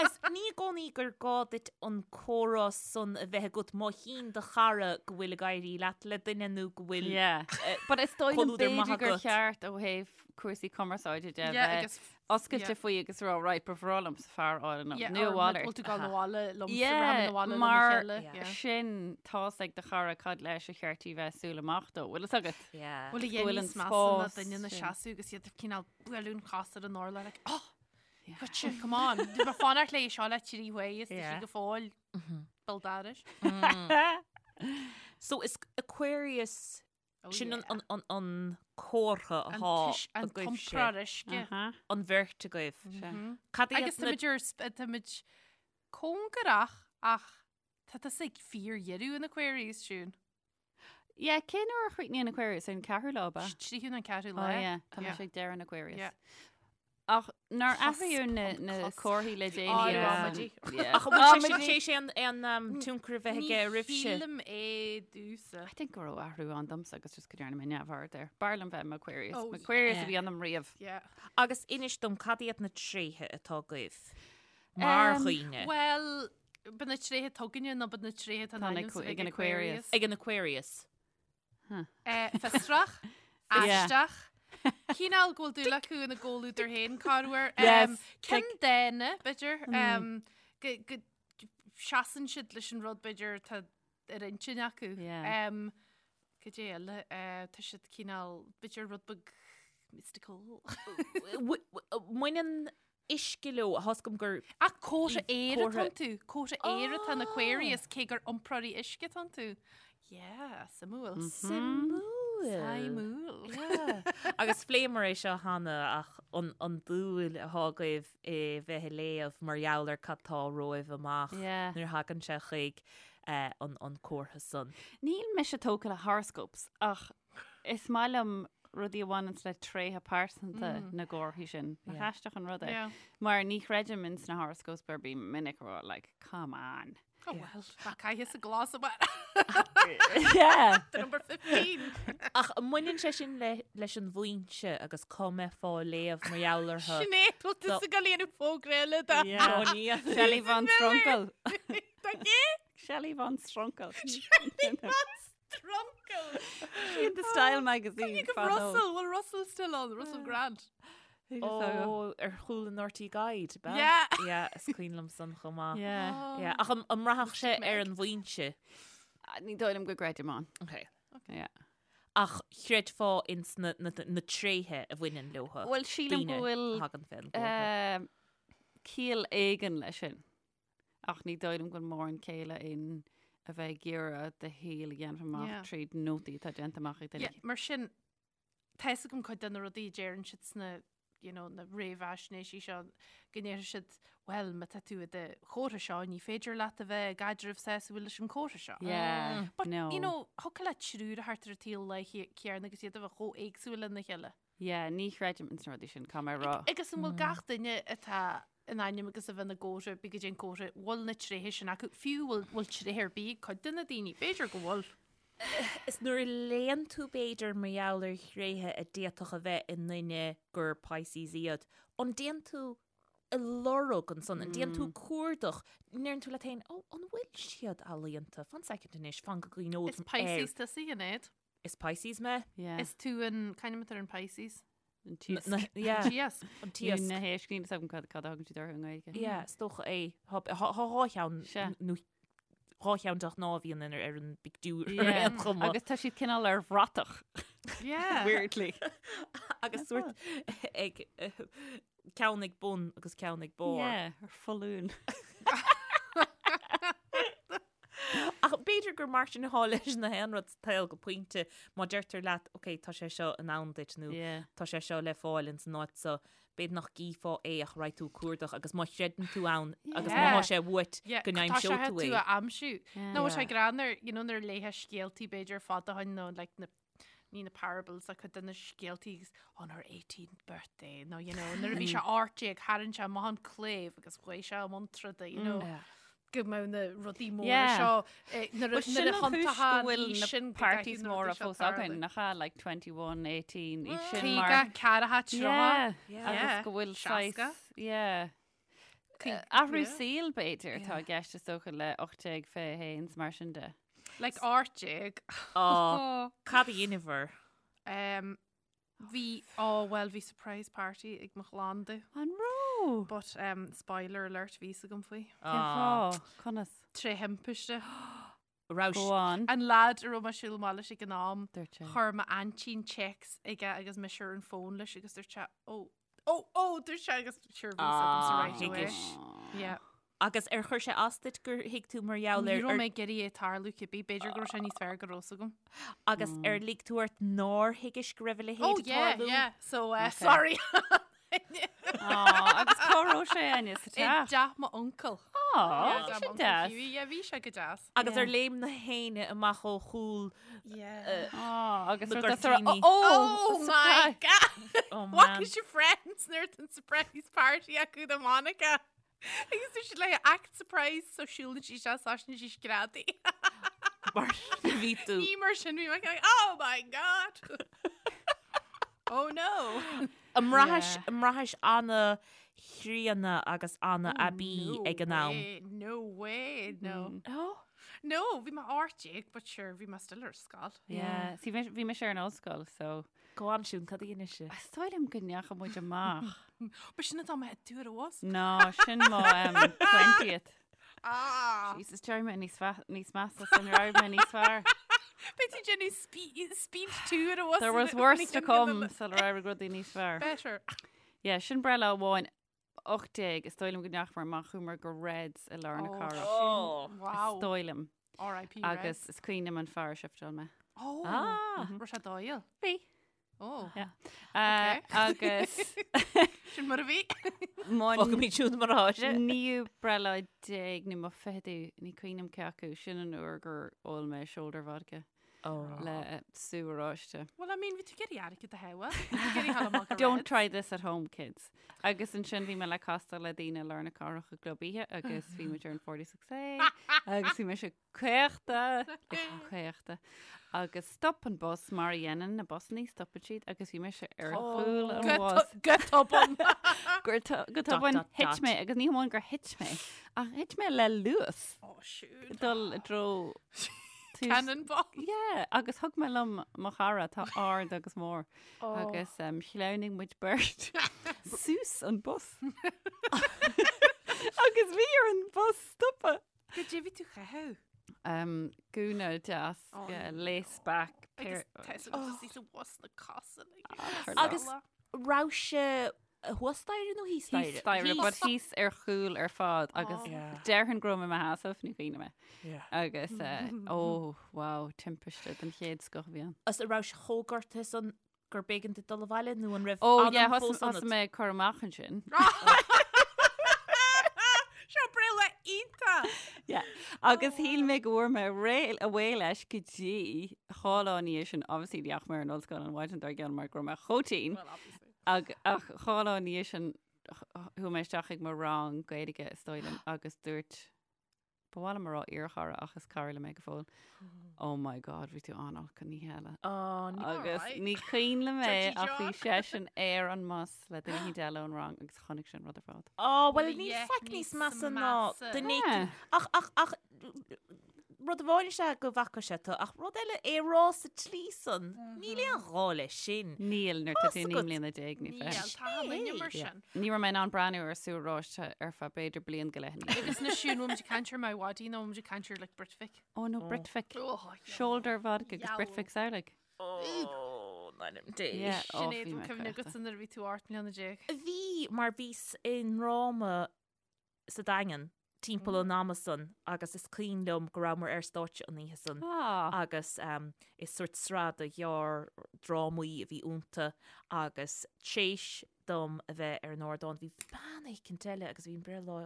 Agus ní i gcónaí gur gá duit an comhrá san a bheith agat má chíonn do chara go bhfuil ag éirí leat le duine nó go bhfuil Yeah. But is dóigh liom comhluadar maith b'fhéidir gur agat. cheart ó thaobh cúrsaí cumarsáide de Yeah, bheith agus oscailte yeah. faoi agus rá, right, ba bhreá liomsa fear a fháil anocht, Yeah, nó a or mhalairt. bhfuil tú ag gabháil abhaile liomsa, Yeah, rachaimid abhaile lena mar chéile, yeah. sin tá's ag do chara cad leis a cheart í bheith súil amach dó, bhfuil fhios agat? Yeah. Bhfuil a Go bhfuil dhéanamh an níos measa ná spás duine ina sin. seasamh agus iad ag cineál bualadh an chos ar an urlár like, oh, gotcha, come on. Bhí mé fanacht léi seo le trí huaire is tá sí Yeah. go fóill béal dorais. So is Aquarius Oh, Sin yeah. an, an, an comhartha An atá tuis- an agaibhse. t-iompróir uisce. Aha. An bheirt agaibh. Sea. Cad iad Agus na táimid ar sp- táimid cóngarach ach tá tusa ag fíordheireadh an Aquarius, Siún. Yeah, cén uair a chríochnaíonn Aquarius? Ar an ceathrú lá, ab ea? Tríú nó an ceathrú Oh lá. yeah, tá Yeah. mise ag deireadh an Aquarius. Yeah. Ach nár Cusp athraíodh na, on na cusp. comharthaí le Á, déanaí? Yeah. amaidí. Yeah. Ach an bhfuil sé sin Amaidí. tar éis aon aon um, tionchar a bheith aige Ní oraibhse? shílim é domhsa. I think go raibh athrú ann domsa agus just go ndearna mé neamhaird air. B'fhearr liom bheith i m'Aquarius. Oh, Aquarius a yeah. bhí ionam riamh. Yeah. Agus inis dom cad iad na tréithe atá agaibh mar Um, dhaoine Well, ba na tréithe atá againne nó ba na tréithe atá Tá in na ainm Aqu- ag ag an Aquarius. ag an Aquarius. Eh, Fiosrach, Yeah. aisteach, cineál go bhfuil dúil acu ina gcomhluadar féin corruair. Yes, Um, Cinn dána, b'fhéidir, um, go, go seasann siad leis an rud b'fhéidir atá ar intinn acu. Yeah. Um, Cad é eile? Tá siad cineál, b'fhéidir rud beag mystical. Mbaineann uisce leo, tá 'fhios agam gur. Ach comhartha aeir atá iontu, comhartha aeir atá in Aquarius cé gur iompróirí uisce atá iontu. Yeah, suimiúil. Suimiúil. Suimiúil. Yeah. Agus phléamar é seo cheana ach an, an dúil atá agaibh i bheith ag léamh mar gheall ar cad tá romhaibh amach Yeah. nuair a thagann sé chuig eh, an, an comhartha san. Níl mise tógtha le horoscopes ach is maith liom rudaí a bhaineanns le tréithe pearsanta na gcomharthaí sin. Nach aisteach an rud é? Yeah. Mar ní chreidim ins na horoscopes mar bím minic ag rá like, come on. Oh well, ná caithfidh sa glas amach. Yeah. The number 15. Ach an mbaineann sé sin le, leis an bhfoinse agus cá mbeifeá ag léamh mar gheall orthu? Sinéad, bhfuil tú ag goil a dhéanamh fógra eile do. Yeah. Ó, ní. Shelley von Strunkel. Tá gé? Shelley von Strunkel. Shelley von Strunkel. In the Style magazine. You give fadó. Russell, well Russell still on, Russell Grant. Ó, ar chúl an RTÉ Guide, b'ea? Yeah. Yeah, is cuimhin liom san chomh maith. Yeah. Yeah, ach an an mbraithfeadh sé ar an bhfoinse? Ah, Ní dóigh liom go gcreidim ann. Okay. Yeah. Ach chreidfeá ins na, na, na tréithe a bhaineann leo. Bhuel, sílim go bhfuil a thagann fén gcomhartha. eh, ciall éigin leis sin. Ach ní dóigh liom go bhfuil mórán céille in a bheith ag iarraidh do shaol a dhéanamh amach Yeah. tríd nótaí atá déanta amach ag duine. Yeah, mar sin, tá fhios agam cuid de na rudaí a deireann siad sna, you know, na réamhaisnéisí seo, go ndéarfaidh siad, well, má tá tú i do chomhartha seo, ní féidir leat a bheith i gcaidreamh sásúil leis an chomhartha seo. Yeah, But, no. you know, thiocfadh le triúr a theacht ar an tsaol lá céanna agus iad a bheith chomh éagsúil lena chéile. Yeah, ní chreidim ins na rudaí sin, caithfidh mé a rá. Agus an bhfuil gach duine atá in ainm agus a bheith ina gcomhartha, bí go dtí an comhartha, bhfuil na tréithe sin acu, fiú bhfuil bhfuil tréithe ar bith ag cuid de na daoine, b'fhéidir go bhfuil. Is nuair a léann tú b'fhéidir mar gheall ar thréithe a d'fhéadfadh a bheith i nduine gur Pisces iad, an dtéann tú ag lorg ansan, an dtéann tú cuardach, an ndeireann tú leat féin, ó, an bhfuil siad ealaíonta? Fan soicind anois, fan go gcuimhneod Is Pisces tusa, a Shinéad. Is Pisces mé. Yeah. Is tú an, cén ainm atá ar an Pisces? An t-iasc. Na, yeah, T-iasc. an t-iasc. Na héisc, níl a fhios agam cad cad a thugann siad orthu i nGaeilge. Yeah, is dócha é. Tá tá dhá cheann Sea. nó dhá cheann de ghnáth a bhíonn in ar an bpictiúr ar Yeah. aon chuma. Agus tá siad cineál ar bhratach. Yeah. Weirdly. Agus sórt ag eh, ceann ag bun agus ceann ag barr. Yeah, ar foluain. Ach b'fhéidir gur mar sin atá leis na haon rud sa tsaol go pointe má deirtear leat ok tá sé seo in ann duit nó Yeah. tá sé seo le fáil ins an áit so b'fhéidir nach gcífeá é ach raghaidh tú ag cuardach agus má chreideann tú ann agus má Yeah. tá sé uait Yeah, go tá sé n-aimseoidh tú tú é. a aimsiú. Nó Yeah. sé greannmhar, you know, nuair a léifeá scéaltaí b'fhéidir fada ó shin nó like na ní na parables ach cuid de na scéaltaí agus on her 18th birthday nó you know nuair a bhí sé 18 tharraing sé amach an claíomh agus ghlaoigh sé i mbun troda you know Yeah. go mbeadh na rudaí móra Yeah. seo eh, nuair a Well, sin nuair a an chúis go thiontaíonn bhfuil aois na sin go parties gcaithfidh na móra rudaí seo fós tarlú. againn, nach ea, like 21, 18, aois sin mar... 50, 40, 30. Yeah, Yeah. agus go bhfuil Seasca. saghas, yeah. Caoi- Athrú yeah. saoil b'fhéidir atá i gceist is dócha le 18, 21 is mar sin de. Like 18. Á, cad a dheineabhair? Um, bhí, oh well, bhí surprise party ag mo chlann domh. An raibh? But um, spoiler alert, bhí fhios agam faoi. Cén fáth? Conas? Tré thimpiste. Raibh Go on. An lad a raibh mé ag siúl amach leis ag an am, Dúirt sé. chuir m'aintín téacs aige agus mise ar an fón leis agus dúirt sé, oh, oh, oh, dúirt sé agus sure bhí fhios agamsa Ah, right away. thuigis. Yeah. Agus ar chuir sé as duit gur thuig tú mar gheall Ní ar raibh mé ag iarraidh é tarlú cibé, b'fhéidir go raibh sé níos fearr go raibh fhios agam. agus ar lig tú ort nár thuigis go raibh a leithéid Oh ag yeah, tarlú? yeah. So, uh, Okay. sorry. Aw, agus cá raibh sé Áine sa I teach? dteach m'uncail. Aw, Yeah, sin m'uncail deas. Hughie. Yeah, bhí sé go deas. Agus Yeah. ar léim na héinne amach ó chúl Yeah. Aw, agus Na rud as a raibh- gcuirtíní. Oh, Oh my God! Oh What man. is your friends nuair an surprise party acu do Monica? Agus tá siad le act surprise so siúlann sí sé sáisna sí screadaí. Mar bhí tú. Ní mar sin bhí mé like, oh my God! Oh no! An mbraithis Yeah. an mbraithis an-chríonna agus an-aibí ag an am. Way, no way, no. Oh. No, bhí mé 18, but sure, bhí mé still ar scoil. Yeah, see, bhí bhí mise ar an ollscoil, so Go on Siún, cad a dhein sibh? Is dóigh liom go ndeachaigh muid amach. Ba sin atá mé dúr was. No, sin mo um, 20th. Ah! Jesus, d'éirigh mé níos fa- níos measa san raibh mé níos fearr. Beidh tú déanamh speed 2 ar a bhus. There was worse to come sular éirigh rudaí níos fearr. Better. Yeah, sin breithlá amháin 18, is dóigh liom go ndeachaigh mar amach chuamar go Reds i lár na cathrach. Oh. Wow. Is dóigh liom. R.I.P. Agus is cuimhin liom an fear a shifteáil mé. Oh. Ah. Raibh sé dóighiúil. Bhí. Oh. Yeah. Uh, agus Sin mar a bhí. Fágfaimid siúd mar atá sé. Naoú breithlá déag nó mo ficheadú, ní cuimhin liom cé acu, sin an uair gur ól mé shoulder vodka le sú oráiste. Well, I mean, bhí tú ag iarraidh airgead a shábháil. Bhí tú ag iarraidh dul amach go Don't Reds. try this at home, kids. Agus ansin bhí mé le castáil le daoine i lár na cathrach i gclub oíche agus bhí muid ar an 46A agus bhí mise caochta, caochta. Agus stop an bus mar a dhéanann na busannaí, stopann siad agus bhí mise ar chúl an bhus. Go tobann. Go tobann thit mé agus ní hamháin gur thit mé ach thit mé le luas. Oh shoot. Dul i dtreo Cannonball. Yeah, agus thug mé liom mo chara atá ard agus mór agus um, shleamhnaigh muid beirt suas an bus. Agus bhí ar an bus stopadh. Goidé bhí tú a chaitheamh? Um, gúna deas, Oh, yeah, no. lace back. Agus pair- tá sa bhus na cosa. Agus raibh sé thuas staighre nó thíos staighre? Thíos staighre, but thíos ar chúl ar fad agus Oh. Yeah. déarfainn go raibh mé i mo sheasamh ní cuimhin liom. Yeah. Agus eh, oh, wow, timpiste den chéad scoth a bhí ann. Is an raibh sé chomh gortaithe san gur b'éigean duit dul abhaile nó an raibh Oh anam yeah, fós thosaigh ionat? mé ag cur amach ansin. Seo breithlá iontach! Yeah. Agus shíl mé go bhfuair mé réidh away leis go dtí dhá lá ina dhiaidh sin, obviously ní dheachaigh mé ar an ollscoil an mhaidin dár gcionn mar go raibh mé chomh tinn. Well, obviously. Ag, ach dhá lá ina dhiaidh sin chuaigh mé isteach ag mo rang Gaeilge is dóigh liom agus dúirt Ba mhaith liom a rá iarchara ach is cara liom é go fóill. Oh my God, bhí tú an-olc an oíche eile. Oh, ní Agus Alright. ní cuimhin liom é Dirty ach bhí John. seisean ar an mbus le duine éicint eile ón rang agus chonaic sé an rud ar fad. Oh, well, Well, níl yeah, faic níos níos measa ná measa. duine Yeah. éicint. Ach, ach, ach, rud amháin is ea go bhfaca sé tú, ach rud eile é rá sa tslí san, níl aon ghá leis sin. Níl nuair tá Fás tú naoi agat. mbliana déag ní Níl, fiche. tá an duine mar Yeah. sin. Ní raibh mé in ann breathnú ar sú oráiste ar feadh b'fhéidir bliain go leith ina dhiaidh. Agus na siún bhfuil muid ag caint ar Miwadi nó muid ag caint ar like Britvic. Oh no, Britvic. Oh, yeah. Shoulder vodka agus Yow. Britvic samhlaigh. Oh, ná Dé. Yeah. Oh, Sinéad, bhí bhfuil mé cuimhne caochta. agat nuair a bhí tú 18 mbliana. Bhí mar bhíos i ndráma sa Daingean timpeall an ama san agus is cuimhin liom go rabhamar ar stáitse an oíche san Ah. agus um, is sort sraith de ghearr-drámaí a bhí iontu agus tréis dom a bheith ar an ardán bhí bean éicint eile agus bhí an breithlá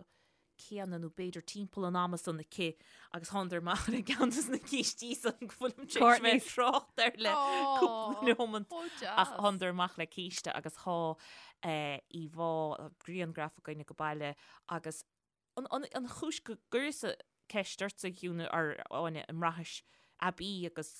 céanna nó b'fhéidir timpeall an ama san aici agus thánadar amach le ceann de na cístí san go bhfuilim tar éis bheith ag trácht air le cúpla nóiméad. Ach thánadar amach le císte agus thá eh, íomhá grianghraf againne go baile agus an, an, an chúis go gcuireas-sa ceist ortsa a Shiún ar Áine an mbraithis aibí agus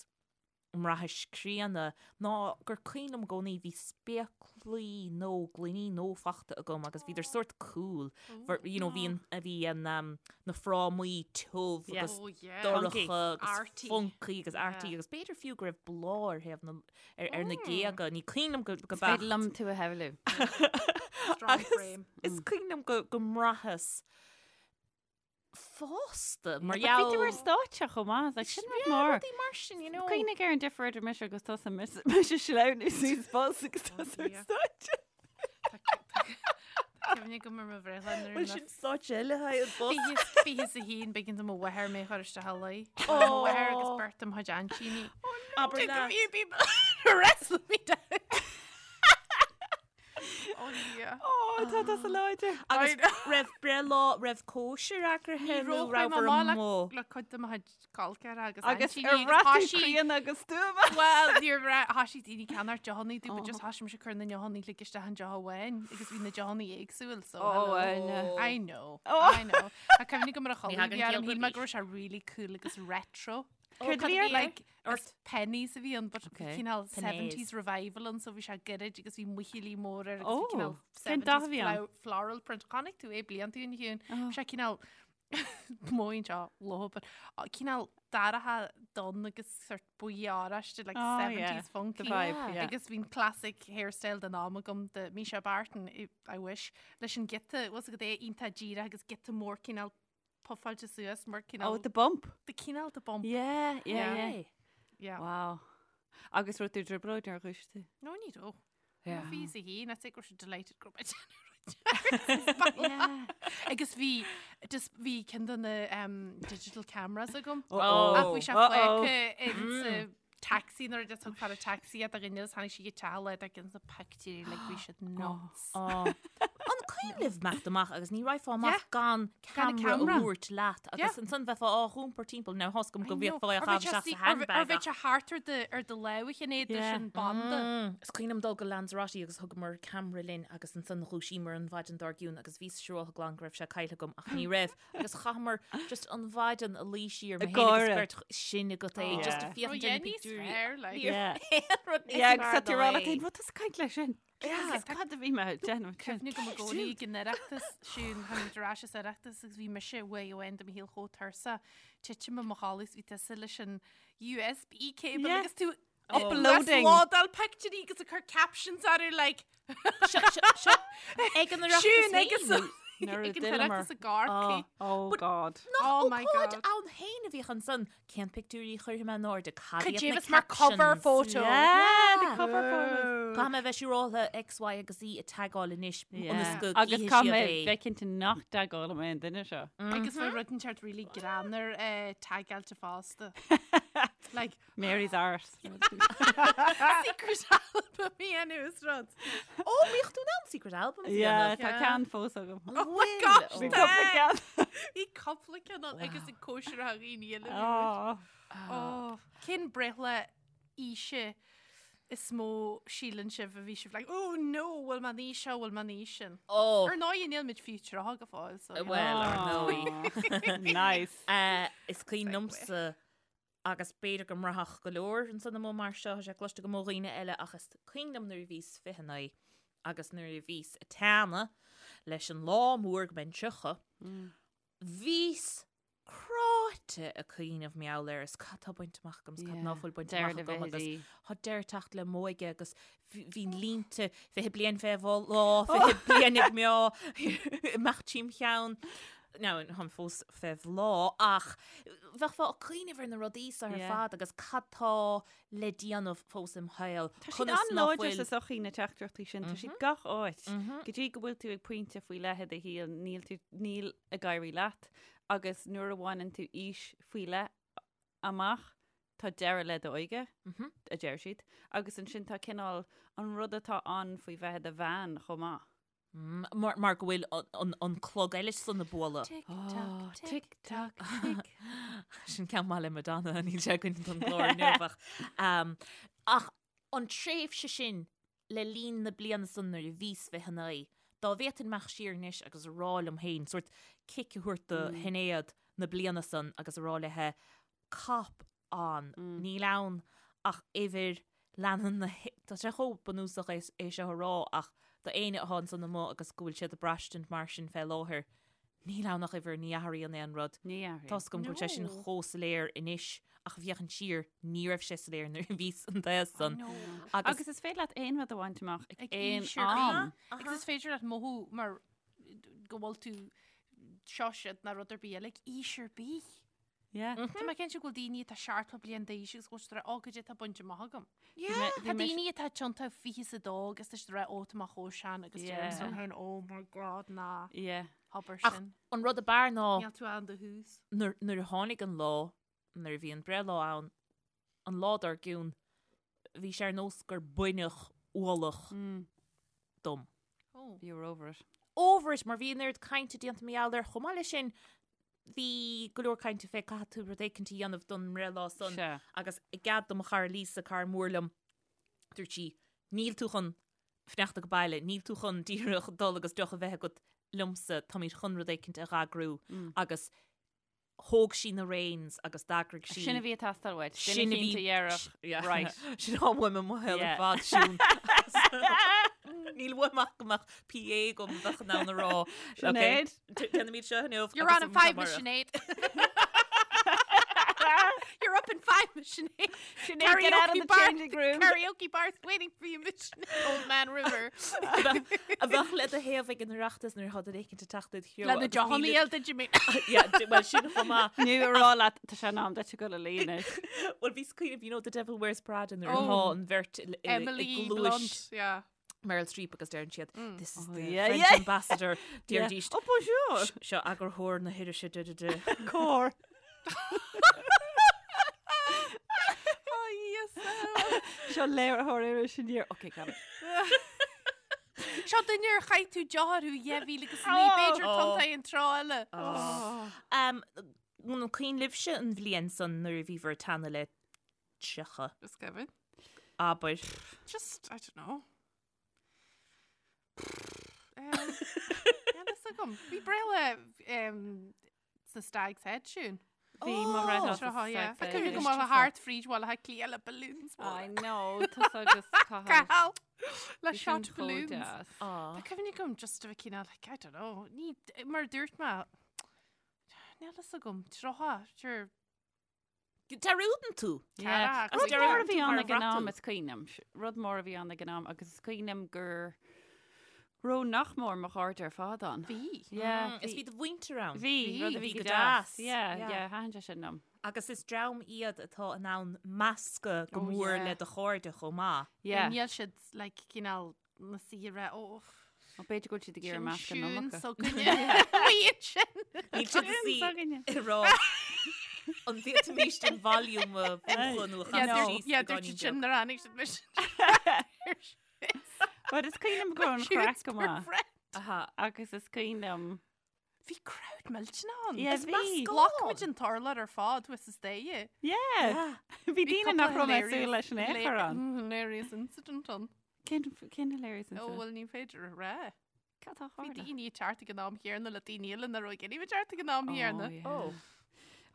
an mbraithis críonna ná gur cuimhin liom i gcónaí bhí spéaclaí nó gloiní nó fachta agam agus bhíodar sórt cool. For, you know, bhí an, bhí an, um, na frámaí tiubh Yeah. agus Oh, yeah. dorcha agus Arty. funky agus arty Yeah. agus b'fhéidir fiú go raibh bláth ar thaobh na, ar, ar na géaga. Ní cuimhin liom go, go Is féidir beacht. liom tú a shamhlú. Strong Agus frame. Is cuimhin liom go, go mbraitheas fásta mar But Bhí tú ar gheall. stáitse chomh maith, like, sin rud Yeah, mór. rudaí mar sin, you know. Cuimhnigh ar an difear idir mise agus tusa mise ag sleamhnú suas bus agus tusa ar dear. stáitse. Tá cuimhne agam ar mo bhreithlá nuair Bhuel a sin stáitse eile haghaidh an bus. Fiche is a haon b'éigean do mo mháthair mé a chur isteach a luí. Mo mháthair agus beirt de mo chuid aintíní. Abair Took a leat. few people to wrestle me down. Oh yeah. Ó, tá tusa láidir. Agus raibh breithlá, raibh cóisir eagraithe nó raibh ar an mó. le cuid de mo chuid col ceathracha agus Agus aintíní ar agus bhraith tú thoisigh- críonna agus stuama. Well, níor bhraith, thoisigh daoine ag ceannacht deochanna dúinn, but just thoisigh mise ag cur na ndeochanna uilig isteach in deoch amháin agus bhí na deochanna éagsúil, so Oh, hello. I know. I know. Oh. I know. Tá cuimhne agam ar a Ní chodladh thagann bhí orm, ciall shíl mé go go raibh sé really cool agus retro. Céard a bhí ort? Like, is pennies a bhí ann, but Okay. cineál Pennies. 70s revival ann, so bhí sé gairid agus bhí muichillí mór air agus Oh, bhí cineál cén dath a 70s bhí ann? floral print. Chonaic tú é blianta ó shin, a Shiún. Oh. Bhí sé cineál móin seo ló, but cineál dorcha donn agus sort buí oráiste, like Oh, yeah. 70s funky. The vibe, yeah. Agus bhí'n classic hairstyle den am agam de Mischa Barton, I wish, leis an giota, was agat é iontach díreach agus giota mór cineál puffáilte suas mar Oh, cineál the bump. the cineál the bump. Yeah, yeah, Yeah. yeah. Yeah. Wow. Agus raibh tú i dtrioblóid nuair a dhúisigh tú? No, ní raibh. Yeah. Bhí sa hí, I think go raibh siad delighted go raibh mé Yeah. Agus bhí just bhí ceann de na um, digital cameras agam. Uh-oh. Ach bhí sé Uh-oh. fágtha in sa taxi nuair a just thug fear an taxi iad a dhuine agus tháinig sí go teach le ar gin sa pictiúirí like bhí siad nuts. An cuimhin libh imeacht amach agus ní raghfá amach Yeah. gan Gan an camera a camera. thabhairt leat agus Yeah. ansan bheifeá á iompar timpeall now tá's agam go I know. bhféadfá é a Or chaitheamh bheadh sé isteach sí- sa or bhe- or handbag bheadh ach sé thart ar do ar do lámh Shinéad leis Yeah. an banda. Mm. Is cuimhin liom dul go Lanzarote agus thugamar camera linn agus ansan dhúisíomar an mhaidin dár gcionn agus bhíos siúráltha glan go raibh sé caillte agam ach ní raibh agus chaitheamar just an mhaidin a luí siar mé Ag féin agus gáire. beirt sin agat é Oh. just Yeah. a féachaint Rud ar na níos pictiúirí. fearr, like. Yeah. Aon rud níos Yeah, agus fearr tá tú ná rá é. leat féin, "Bhuel, tusa ag caint leis sin. Yeah. Agus cad a bhí mé ag déanamh sin?" Cuimhne agam i gcónaí ag an Oireachtas siún tháinig ar ais as Oireachtas agus bhí mise uair amháin de mo shaol chomh tuirseach titim i mo chodladh is bhí tusa leis an USB cable Yeah. agus tú Uploading. Lódáil pictiúirí agus ag cur captions orthu like Seo seo seo ag an Oireachtas Siún agus féin. Nuair a ag an d'fhilleamar. Oireachtas i gCorcaigh. Oh God. Nach Oh my ócáid God. ann féin a bhíodh ansan cén pictiúirí a chuirfidh mé in airde cad Cad iad é na bheas mar cover captions? photo. Yeah, the Yeah. cover photos. Caithfidh mé a bheith siúráltha X, Y agus Z a tagáil anois ionas Yeah. go Agus gcífidh caithfidh siad mé é. bheith cinnte nach dtagálfaidh mé an duine seo. Agus bhí rud inteacht really greannmhar tagáilte fosta. Like Mary's arse. secret album a dhéanamh is rud. Ó, bhíodh tú in ann secret albums a Yeah, dhéanamh. tá Yeah. ceann fós agam. Oh my gosh, Bhí tá. cúpla ceann. Bhí cúpla ceann ann agus ag cóisir a dhaoine eile. Oh. Oh, cén breithlá aoise is mó síleann sibh a bhí sibh like, oh no, bhfuil mé an aois seo, bhfuil mé an aois sin. Ó, Ar ndóigh níl muid fiú 30 go fóill, so. you know. well, ar ndóigh. Nice. Eh, Is cuimhin liomsa agus b'fhéidir go mbraithfeadh go leor ansan amuigh mar seo, tá sé cloiste agam ó dhaoine eile ach is cuimhin liom nuair a bhíos 29 agus nuair a bhíos ag teannadh leis an lá mór go mbeinn 30, bhíos cráite ag cuimhneamh mar gheall air is cad tá bainte amach agam is cad ná fuil bainte amach agam agus tá deireadh ag teacht le m'óige agus bhí línte 20 bliain fé bhláth, 20 bliain ag meá, imeacht tríom cheann. Now, táim fós fé bhláth ach bheifeá ag cuimhneamh ar na rudaí seo ar fad agus cad tá le déanamh fós im shaol. Tá siad an-láidir sa sochaí na teachtaireachtaí sin, tá siad gach áit. Go dtí go bhfuil tú ag pointe faoi leith i do shaol, níl tú, níl ag éirí leat agus nuair a bhaineann tú aois faoi leith amach, tá deireadh le d'óige, a deir siad, agus ansin tá cineál an rud atá ann faoi bheith i do bhean chomh maith. Mar, mar go bhfuil an, an clog eile san ag bualadh. Tick tock, tick tock, tick. Sin ceann maith le Madonna, níl sé againn don gclár inniu ach, um, ach an tréimhse sin le linn na bliana san nuair a bhíos 29, dá bhféadfainn imeacht siar anois agus a rá liom féin, sórt cic a thabhairt do Shinéad na bliana san agus a rá léithe, cop on, níl ann ach uimhir, leanann na, tá sé chomh bunúsach é é seo a rá ach do éinne atá ansan amuigh agus go bhfuil siad ag braistint mar sin fé láthair, níl ann ach uimhir, ní athraíonn aon rud. Ní athraíonn. Tá's agam go bhfuil sé sin chomh soiléir anois ach ag féachaint siar, ní raibh sé soiléir nuair a bhíos an t-aos san. Agus Agus is féidir leat aon rud a bhaint amach ag Ag aon aois ar bith. am. Agus is féidir leat mothú mar go bhfuil tú seo siad ná rud ar bith eile ag aois ar bith. Yeah. Tá mé cinnte go bhfuil daoine atá 70 bliain d'aois agus go bhfuil siad ag rá, ó, goidé tá bainte amach agam. Yeah. Tá daoine atá tiontú 22 agus tá siad ag rá, ó, tá mé chomh sean agus Yeah. deirim liom féin, oh my god, ná Yeah. habair Ach sin. an rud ab fhearr ná Níl tú ann do thús. nuair nuair a tháinig an lá, nuair a bhí an breithlá ann, an lá dár gcionn, bhí sé ar nós gur baineadh ualach dom. Oh. You were over it. Over it, mar bhí an oiread cainte déanta mar gheall air. Chomh maith leis sin, bhí go leor cainte fé caithfidh tú rud éicint a dhéanamh don mbreithlá san Sea. agus i gcead do mo chara Lisa, cara mór liom, dúirt sí, níl tú chun fanacht ag baile, níl tú chun díreach dul agus deoch a bheith agat liomsa, táimid chun rud éicint a dh'eagrú agus thóg sí na reins agus d'eagraigh sí. Sin a bhí ag teastáil uait. Sin Sin a a bhí bhí- dheireadh. Yeah. Right. Sin atá uaim i mo shaol ar Yeah. fad, Siún. Níl uaim ach go mbeadh PA agam bheadh in ann a rá. Sinéad. Okay, Déanaimid seo inniu. You're agus on in five, amárach. Sinéad. You're up in five, Sinéad. Sinéad, get out of the bar, changing room. Karaoke bar's waiting for you, Sinéad. Old Man River. A bheadh le do thaobh ag an Oireachtas nuair atá duine éicint ag teacht id threo. Le na deochanna a fháil duit, you mean? Yeah, well sin chomh maith. Nó a rá leat tá sé in am duit a ghoil a luí anois. Well bhíos ag cuimhneamh, you know, The Devil Wears Prada nuair atá Oh. an bheirt i Emily gcluais Blunt, yeah. Meryl Streep agus deireann siad, This is Oh, the yeah, French yeah. ambassador. Deiridís, Oh, bonjour! Seo eagarthóir na hirise de de de. Cór. Oh, yes. Seo léiritheoir iris Aniar. Ok, got it. Seo duine ar chaith tú deoch orthu 2009, b'fhéidir tonn an tráth eile. Um, an cuimhin libhse an bhliain san nuair a bhí bhur teannadh le 30. Is cuimhin. Abair. Just, I don't know. Um, Níl fhios agam. Bhí breithlá um, sa Stag's Head siún. Bhí mo bhreithlá sa Tráth, yeah. Stag's Tá Head. cuimhne go maith le thart fríd Bhaile Átha Cliath le balloons I móra. know, tusa agus Cathal. Cathal! Le Bhí sin shot chomh balloons. deas. Tá cuimhne agam just a bheith cineál, like, I don't know, ní, mar a dúirt mé, níl fhios agam, tráth, sure, Dearúdann tú. Yeah. Cara, Rud mór a bhí ann Mar ag an am bhraith tú. is cuimhin liom. Rud mór a bhí ann ag an am agus is cuimhin liom gur raibh nach mór mo chairde ar fad ann. Bhí. Yeah, Is bhí do mhuintir ann. Bhí, rud a bhí go go deas. deas. Yeah, Yeah. yeah, thaitin sé sin liom. Agus is dream iad atá in ann meascadh go Oh, mór yeah. le do chairde chomh maith. Yeah. Níl siad, like, cineál na saoire, ó, Ó, b'fhéidir go bhfuil siad ag iarraidh sin meascadh siún an iomarca. s'againne. Bíonn sin. Níl siad ag Siún s'againne. ag rá an bhféadfaimis an volume a mhúchadh nó a Yeah, chasadh dúirt- síos yeah, beagáinín dúirt siad sin beag. nuair a tháinig siad mise. But is cuimhin liom go raibh an chraic go maith. Aha. Agus is cuimhin liom. Bhí crowd millteanach ann. Yeah, Is bhí. meascán. Ghlac muid an t-urlár ar fad thuas is daoithe. Yeah. Bhí daoine nach raibh mé ag súil leis in aon chor ann. Hilarious incident ann. Cén cén hilarious Ó, incident? bhuel, ní féidir a rá. Cad tá Bhí tharla? daoine ag teacht ag an am chéanna le daoine eile nach raibh ag iarraidh teacht ag an am chéanna. Oh, yeah. Oh.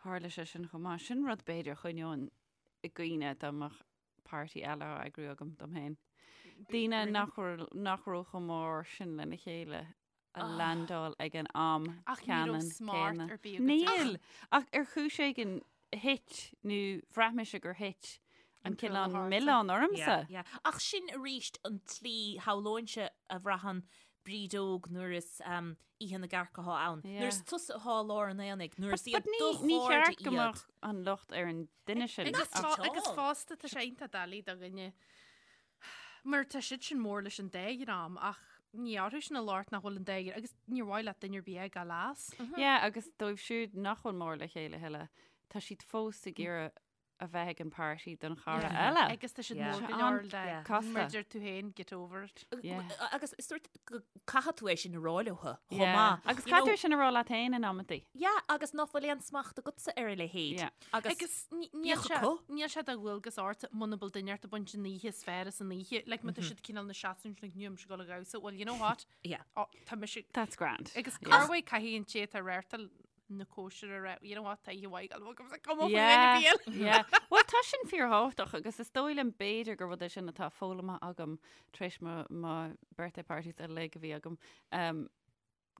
Tharla sé sin chomh maith. Sin rud b'fhéidir a choinneoinn i gcuimhne dá mbeadh party eile á eagrú agam dom féin. Daoine nach raibh nach raibh chomh mór sin lena chéile a landáil ag an am Ach ní raibh ceannann smart céanna. ar bith agat. Níl! Ach ar chúis éigin thit nó bhraith mise gur thit an An cineál chuile milleán ormsa. Yeah, yeah. Ach sin arís an tslí shamhlóinnse a bhraitheann Bríd óg nuair is um, oíche na gcearc atá ann. Yeah. Nuair is tusa atá i lár an aonaigh, nuair is iad But ní do ní chairde cheart go iad. mbeadh an locht ar an duine sin. Agus ach- fá- agus fosta tá sé iontach doiligh do dhuine mar tá siad sin mór leis an dá dhream ach ní orthu sin an locht nach bhfuil an dá dhream agus níor mhaith leat duine ar bith a fhágáil as. Yeah, agus dóibh siúd nach bhfuil mór le chéile a thuilleadh, tá siad fós ag iarraidh a bheith ag an party don chara eile. Agus tá siad Yeah. mór go An- leor le yeah. Casta. mar deir tú féin get over it. Yeah. Agus is sórt go caithfidh tú é sin a rá leo chomh Yeah. maith. Agus You caithfidh know- tú sin a rá leat féin in amantaí. Yeah, agus nach bhfuil aon smacht agatsa ar a leithéid. Yeah. Agus, Agus ní- níl bíodh sé acu. níl sé de dhualgas ort muna bhfuil duine ort ag baint an oíche is fearr as an oíche. Like má tá siad cineál ina seasamh ansin like níl mise ag dul ag damhsa. Well, you know what? Yeah. Oh, tá mise That's grand. Agus Yeah. corruair caithfidh an té atá ag reáchtáil na cóisire a rá, you know what, tá oíche mhaith agam agus come up Yeah, with any yeah. Well, tá sin fíorthábhachtach agus is dóigh liom b'fhéidir gur rud é sin atá foghlamtha agam tar éis mo, mo birthday parties uilig a bhí agam. Um,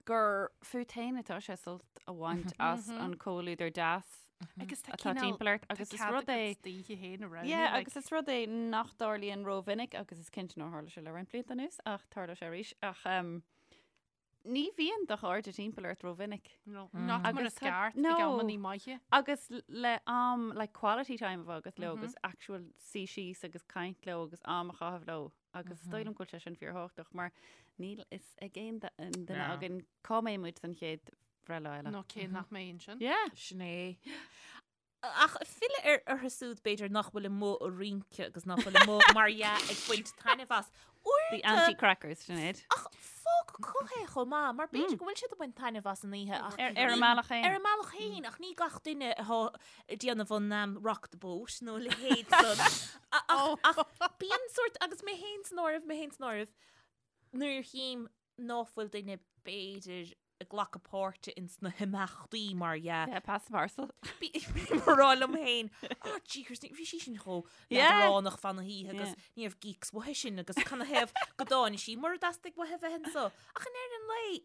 gur fút féin atá sé sult a bhaint as an comhluadar deas Agus tá atá cineál- timpeall ort tá agus is cead rud é agat d'oíche féin a roghnú, Yeah, like- agus is rud é nach dtarlaíonn rómhinic agus is cinnte nár tharla sé le roinnt blianta anuas ach tharla sé arís ach um, ní bhíonn do chairde timpeall ort rómhinic. No, not mar Agus is tá- ceart ag no. amannaí maithe. Agus le am like quality time a bheith agat leo agus actual suí síos agus caint leo agus am a chaitheamh leo agus is dóigh liom go bhfuil sé sin fíorthábhachtach mar níl fhios ag aon duine No. againn cá mbeidh muid don chéad bhreithlá eile. Nó cé nach mbeidh ansin. Yeah. Sin é. Ach filleadh ar orthu siúd b'fhéidir nach bhfuil amuigh ag rince agus nach bhfuil amuigh mar dhea ag baint taitneamh as. The Uaireanta anti-crackers, Sinéad. ach fág acu é chomh maith mar b'fhéidir go bhfuil siad ag baint taitneamh as an oíche ach Ar ar a mbealach féin. ar a mbealach féin ach ní gach duine atá ag déanamh an um, rock the boat nó a leithéid san. A- Ach, ach bíonn sórt agus mé féin san áireamh, mé féin san áireamh, nuair a chím ná fuil duine b'fhéidir ag glacadh páirte ins na himeachtaí mar dhea. Yeah, pass the parcel. Bím ag rá liom féin, oh jeekers, bhí sí sin chomh Yeah. leadránach fan na hoíche agus Yeah. ní raibh geeks uaithi sin agus canathaobh go dtáinig sí mura dteastaigh uaithi bheith anso. Ach in ndeireadh an lae,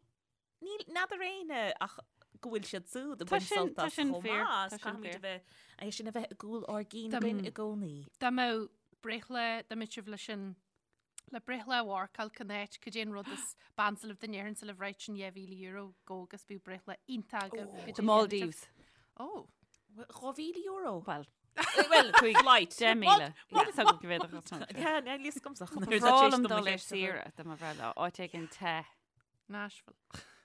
níl n'fheadar éinne ach go bhfuil siad siúd ag Tá baint sin- sult tá as sin chomh fíor, maith, tá is sin caithfimid fíor. a bheith, é sin a bheith i gcúl ár gcinn Dá- againn i gcónaí. Dá mbeadh breithlá, dá mbeadh sibh leis an. Le breithlá a mharcáil cén áit, cad é an rud is b'ansa libh dá ndéarfainnse libh right sin €2,000 go agus bíodh breithlá iontach agaibh. Cad é The Maldives. Oh. €2,000? Well, Well, flight. 10,000. Níl fhios agam go bhféadfadh as an Yeah, níl fhios agamsa. Ba bhreá liom dul ar saoire do mo bhreithlá, áit éigin te. Nashville.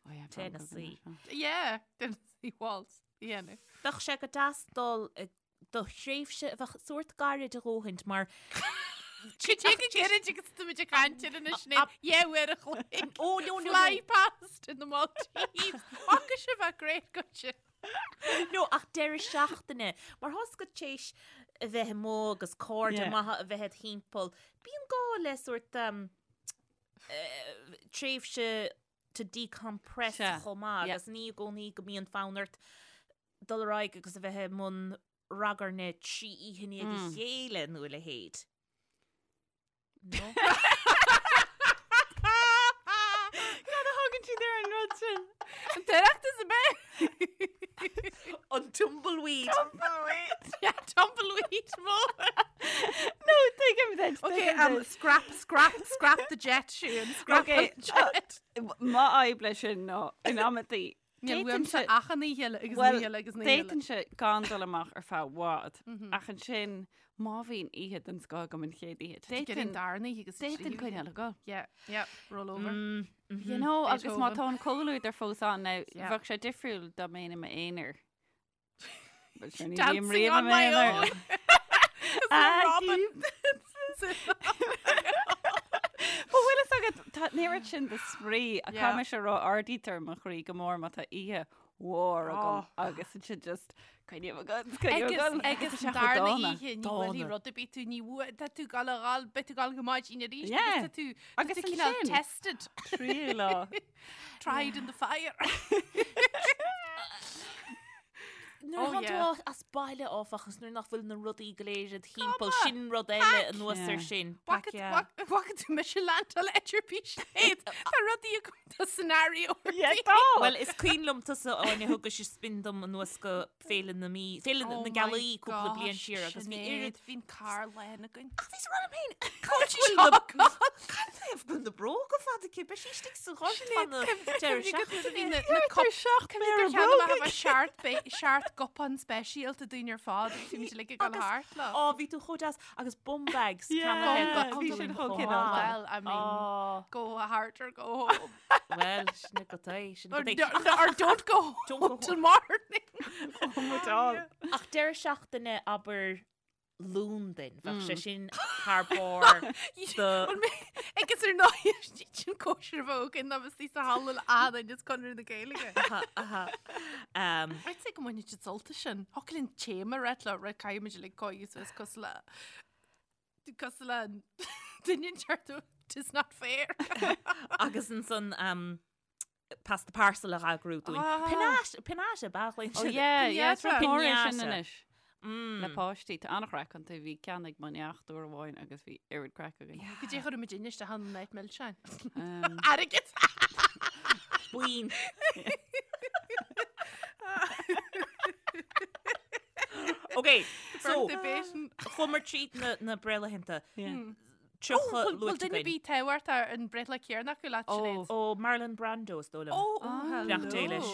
Oh yeah, Tennessee. Yeah, Tennessee Waltz. Yeah, no. Bheadh sé go deas dul ag do thréimhse a bheadh sórt gairid a dhóthaint mar Cad é chomh gairid agus tá muid ag caint air anois Sinéad, yeah uair a chloig. Oh no no Fly past in the Maldives. Fágfaidh sé bheith great go sin. No ach deireadh seachtaine mar tá's agat t'éis a bheith amuigh agus cairde Yeah. maithe a bheith id thimpeall. Bíonn gá le sórt um, eh, tréimhse to decompress Sea. chomh maith Yeah. agus ní i gcónaí go mbíonn fonn ort dul ar aghaidh agus a bheith i mbun ragairne 3 oíche i ndiaidh a chéile nó a leithéid. No? Cad a thugann siad ar an rud sin? An tOireachtas ab ea? An tumbleweed. Tumbleweed. Yeah, tumbleweed mór. No, tuigim duit. Okay, um, scrap, scrap, scrap the jet, Siún. Scrap Okay, the jet. Mo fhadhb leis sin ná in amantaí Níl uaimse ach an oíche eile agus an Well, oíche eile agus an oíche eile. d'fhéadfainnse gan dul amach ar feadh i bhfad, ach ansin má bhíonn oíche den scoth agam an chéad oíche, D'fhéadfainn d'fhéadfainn darna oíche agus d'fhéadfainn coinneáil ag dul. Yeah, yeah, roll over. You know, agus má Beethoven. tá an comhluadar fós ann now, Yeah. bheadh sé difriúil dá mbeinn i m'aonar. But sure, ní bhím Dancing riamh i on my m'aonar. own. Ah, Robin. Ba bhfuil fhios agat, tá an oiread sin de spraoi a Yeah. caithfidh mise a rá ardaítear mo chroí go mór má tá oíche mhór agam Oh. agus ansin just coinním ag dul, coinním ag Agus dul. agus Tá sé an chomh darna dána. oíche ní bhfuil rud ar bith tú ní bhua tá tú ag gabháil a ghabháil beidh tú ag gabháil go maidin arís Yeah. agus tá tú tá Agus tú cineál ansin- tested Tríú lá. tried in the fire. Nuair Oh, atá yeah. tú as baile áfach agus nuair nach bhfuil na rudaí go léir id thimpeall, sin rud eile anuas ar Yeah. sin. Pack, yeah. Bhfaca tú mise landáil idir bhí siad Tá rudaí agam tá scenario Yeah, tá. Well, is cuimhin liom tusa Áine thugais spin dom anuas go Féile na Mí, Féile Oh na Gealaí cúpla bliain siar agus bhí oiread Bhí'n carr lán againn. Ach bhí rud féin Cad bhfuil na Cad taobh bhfuil na bróga fada aici? Beidh sí istigh sa ghort fan na deireadh seachtaine. Na Cuir seach Gur cheann amach a seart seart cupán speisialta dúinn ar fad agus bhí muid uilig ag dul thart leo. Ó, bhí tú chomh deas agus bum bags Yeah, ceannaithe bhí do sin chomh chomh maith. cineálta. Well, I mean, Ó, go hard or go home. well, sin go é, sin Or, go é. or, or don't go home Don't go till morning. Ach deireadh seachtaine abair Londain, bheadh sé sin thar barr do Agus ar ndóigh sin cóisir bheag in agus í sa halla le Ádain is Conradh na Gaeilge. Aha, aha. Um, I'd say go mbainfidh siad sult as sin. Thiocfadh linn téama a rith leo, right, caithfidh muid uilig coigeadh suas cosúil le cosúil le an duine inteacht 'Tis not fair. agus ansan um, pass the parcel a eagrú dúinn. Ah. Piñata, piñata, ba Oh yeah, yeah, it's Piñata. rud mór é sin Piñata. anois. Le páistí, tá an-chraic iontu, bhí ceann ag mo neacht uair amháin agus bhí oiread craic againn. Go dté chuir muid isteach an night milseáin. Um, Airgead! Buín. Ok, so Birthday baiting. chuamar tríd na, na breithlaethanta. yeah. 30 Bhfuil luaite duine againn. bith tábhacht ar an breithlá céanna acu leat, Oh. Sinéad? Ó, Marlon Brando is dóigh liom. Oh, Ah, Beannacht Dé leis.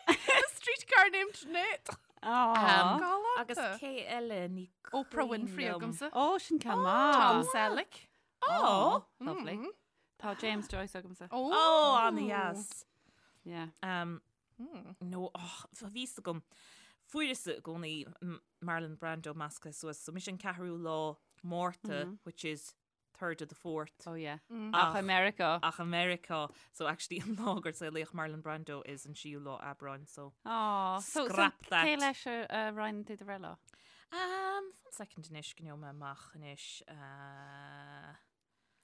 A streetcar named Sinéad. Aw. Um, Galánta. Agus cé eile ní Oprah cuimhin Winfrey liom. agamsa. Ó, sin ceann Tom maith. Selleck. Oh. Lovely. Tá James Joyce agamsa. Oh, Oh, an-dheas. Yeah. Um, No, oh, bhí a fhios agam. Fuaireas i gcónaí Marlon Brando measctha suas, so mise an ceathrú lá Márta, which is third of the fourth. Oh yeah. Ach i Meiriceá. Ach i Meiriceá. So actually an lá gur saolaíodh Marlon Brando is an séú lá Aibreáin, so. Aw, so, so Scrap that. cé leis a a roinneann tú do bhreithlá? Um, one second anois, go ngeobhaidh mé amach anois. Uh...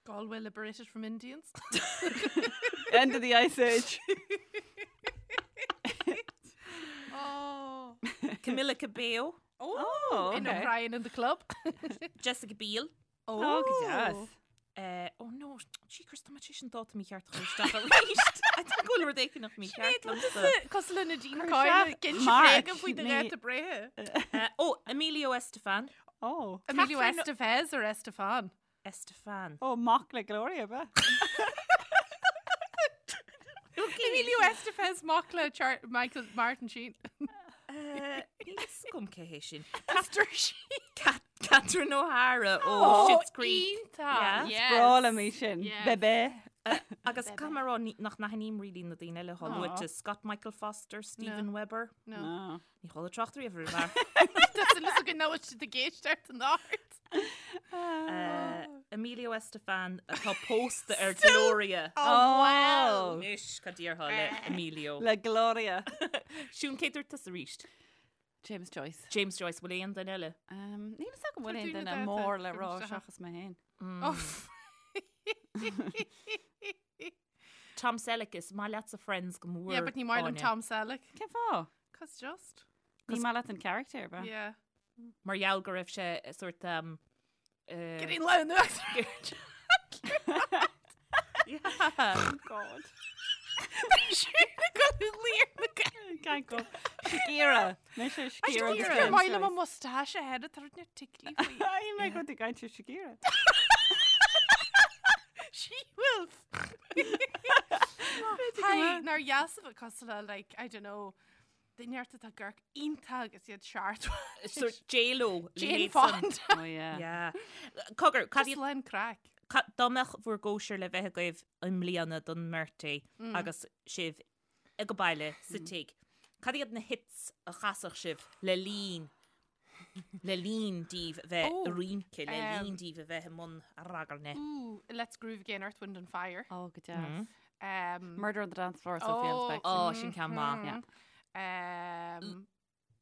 Galway liberated from Indians. End of the Ice Age. Oh. Camila Cabello. Oh, Oh, In okay. O'Brien in the club. Jessica Biel. Oh, go deas. Uh, oh no, jeekers, tá mé tar éis an dáta mícheart a chur isteach arís. I think go bhfuil rud éigin nach mícheart liomsa. Cosúil le Nadine Cuir Coyle, isteach gin March, sé faoi do ní- dháta breithe. Uh, oh, Emilio Estefan. Oh. Emilio Catherine- Estevez or Estefan? Estefan. Ó, mac le Gloria, ab ea? Emilio Estevez mac le Char Michael Martin Sheen. Níl fhios agam cé hé sin. Pastor Sheen. Catherine O'Hara ó Schitt's Creek. Iontach. Yeah. Yes. Breá liom í sin. Yes. Bebe. Agus caithfidh mé a rá ní- nach n-aithním really na daoine eile atá Aw. luaite. Scott Michael Foster, Steven Weber. No. No. Ní chuala trácht riamh ar an bhfear. Tá súil agam nach bhfuil siad ag éisteacht an ard. Emilio Estefan atá pósta ar Gloria. Oh, wow. Anois cad déarfá le Emilio. Le Gloria. Siún cé dúirt tusa arís. James Joyce. James Joyce, bhfuil aon duine eile? Um, Níl fhios agam bhfuil Tá aon daoine duine dáta mór le rá agam isteach. seachas mé féin. Oh. Tom Selleck is maith leatsa Friends go mór. Yeah, but ní maith liom Áine. Tom Selleck. Cén fáth? Cos just. Ní maith leat an character, ba? Yeah. Mar gheall go raibh sé sort um, Getting low in the Yeah. God. Can't go. Shakira. Mise Shakira. Agus gur maith liom an mustache a head tar na tickly faoi. Ai mé go ag caint ar Shakira. She-wolf. Hi, nár dheas a bheith cosúil le like, I don't know, duine ort atá ag amharc iontach agus iad seart. Sort J-Lo. Jane Fonda. Oh yeah. Yeah. Cogar, cad Just iad lán craic. dá mbeadh bhur gcóisir le bheith agaibh i mbliana don mbeirtí agus sibh ag baile sa tigh. Cad iad na hits a chasfadh sibh le linn le linn daoibh bheith Oh, ag rince, le um, linn daoibh a bheith i mbun ragairne. Ooh, Let's Groove Again, Earth, Wind and Fire. Oh, go deas. Um, Murder on the Dance Floor, Sophie Oh, Ellis Oh, sin ceann maith. Yeah. Um,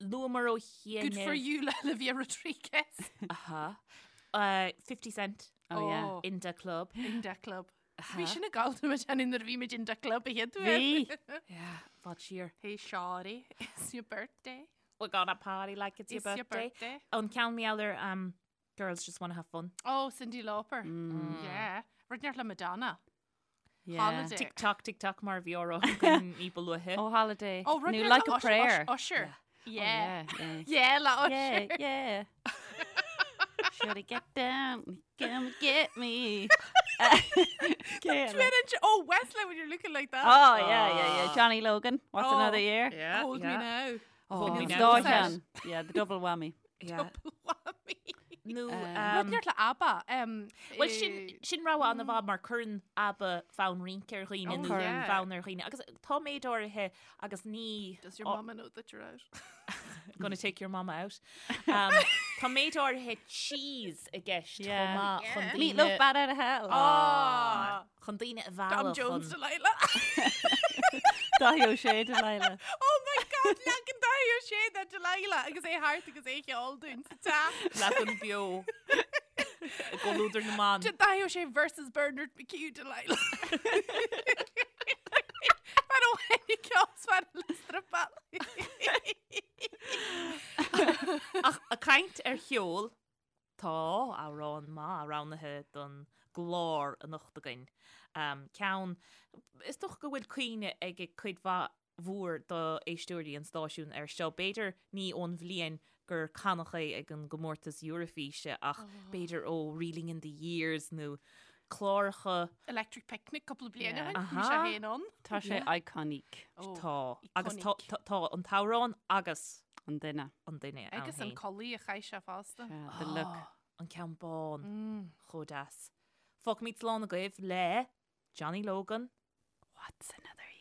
Luamar ó chianaibh. Good for you, le Olivia Rodriguez. Aha. Uh, 50 Cent. Oh, yeah. In da Club. In da Club. Bhí sin ag gabháil muid ann nuair a bhí muid in da club a chéad uair. Bhí. Yeah, fad siar. Hey Shawty, it's your birthday. We're gonna party like it's your It's your birthday. birthday. An ceann meallar um, Girls Just Wanna Have Fun. Oh, Cyndi Lauper. Mm. Yeah. Rud inteacht le Madonna. Yeah. Holiday. Tick tock, tick tock mar a bhí á rá againn ní ba luaithe. Oh, Holiday. Oh, rud Nó inteacht Like le a Ush- Prayer. Ush- Usher. Oh, Yeah. yeah. Yeah, le Usher. Yeah, yeah. Should I get down? Come get me. Yeah. Oh, Wesley, when you're looking like that. Oh, yeah, yeah, yeah. Johnny Logan. What's Oh. another year? Yeah, Hold me yeah. now. Oh, Hold me an now. dá cheann. Yeah, the double whammy. Yeah. Double whammy. Nó Rud inteacht le ABBA. Um, Well sin sin rogha an-mhaith mar cuireann ABBA fonn rince ar dhaoine Oh, nó yeah. fonn ar dhaoine. Agus tá méid áirithe agus ní Does your oh, mama know that you're out? gonna take your mama out. Um, tá méid áirithe cheese i gceist chomh Yeah. maith chun daoine Meatloaf bat out of hell. Ah, chun daoine a Tom mhealladh Jones chun Delilah. Dáithí Ó Sé Delilah. Oh my God, leagan Dáithí Ó Sé de Delilah agus é thart agus é cheol dúinn sa teach. leagan beo i gcomhluadar na mban. Dáithí Ó Sé versus Bernard McHugh Delilah. Mar ó henni ceol mar le strapáil. Ach ag caint ar cheol, tá amhrán maith roghnaithe don gclár anocht againn. Um, ceann, is dócha go bhfuil cuimhne ag cuid mhaith mhór d'éisteoirí an stáisiúin air seo. B'fhéidir ní ón bhliain gur canadh é ag an gcomórtas Eurofíse ach b'fhéidir ó Reeling in the Years nó cláracha Electric Picnic cúpla bliain Yeah. ó shin, bhí sé Aha. féin ann. Tá sé iconic Oh, tá agus tá iconic. tá- tá an t-amhrán agus an duine. an duine ann Agus an féin. culaith a chaith sé fosta. Yeah, the look. Ah, An ceann bán Mm. chomh deas. Fágfaimid slán agaibh le Johnny Logan. What's another year?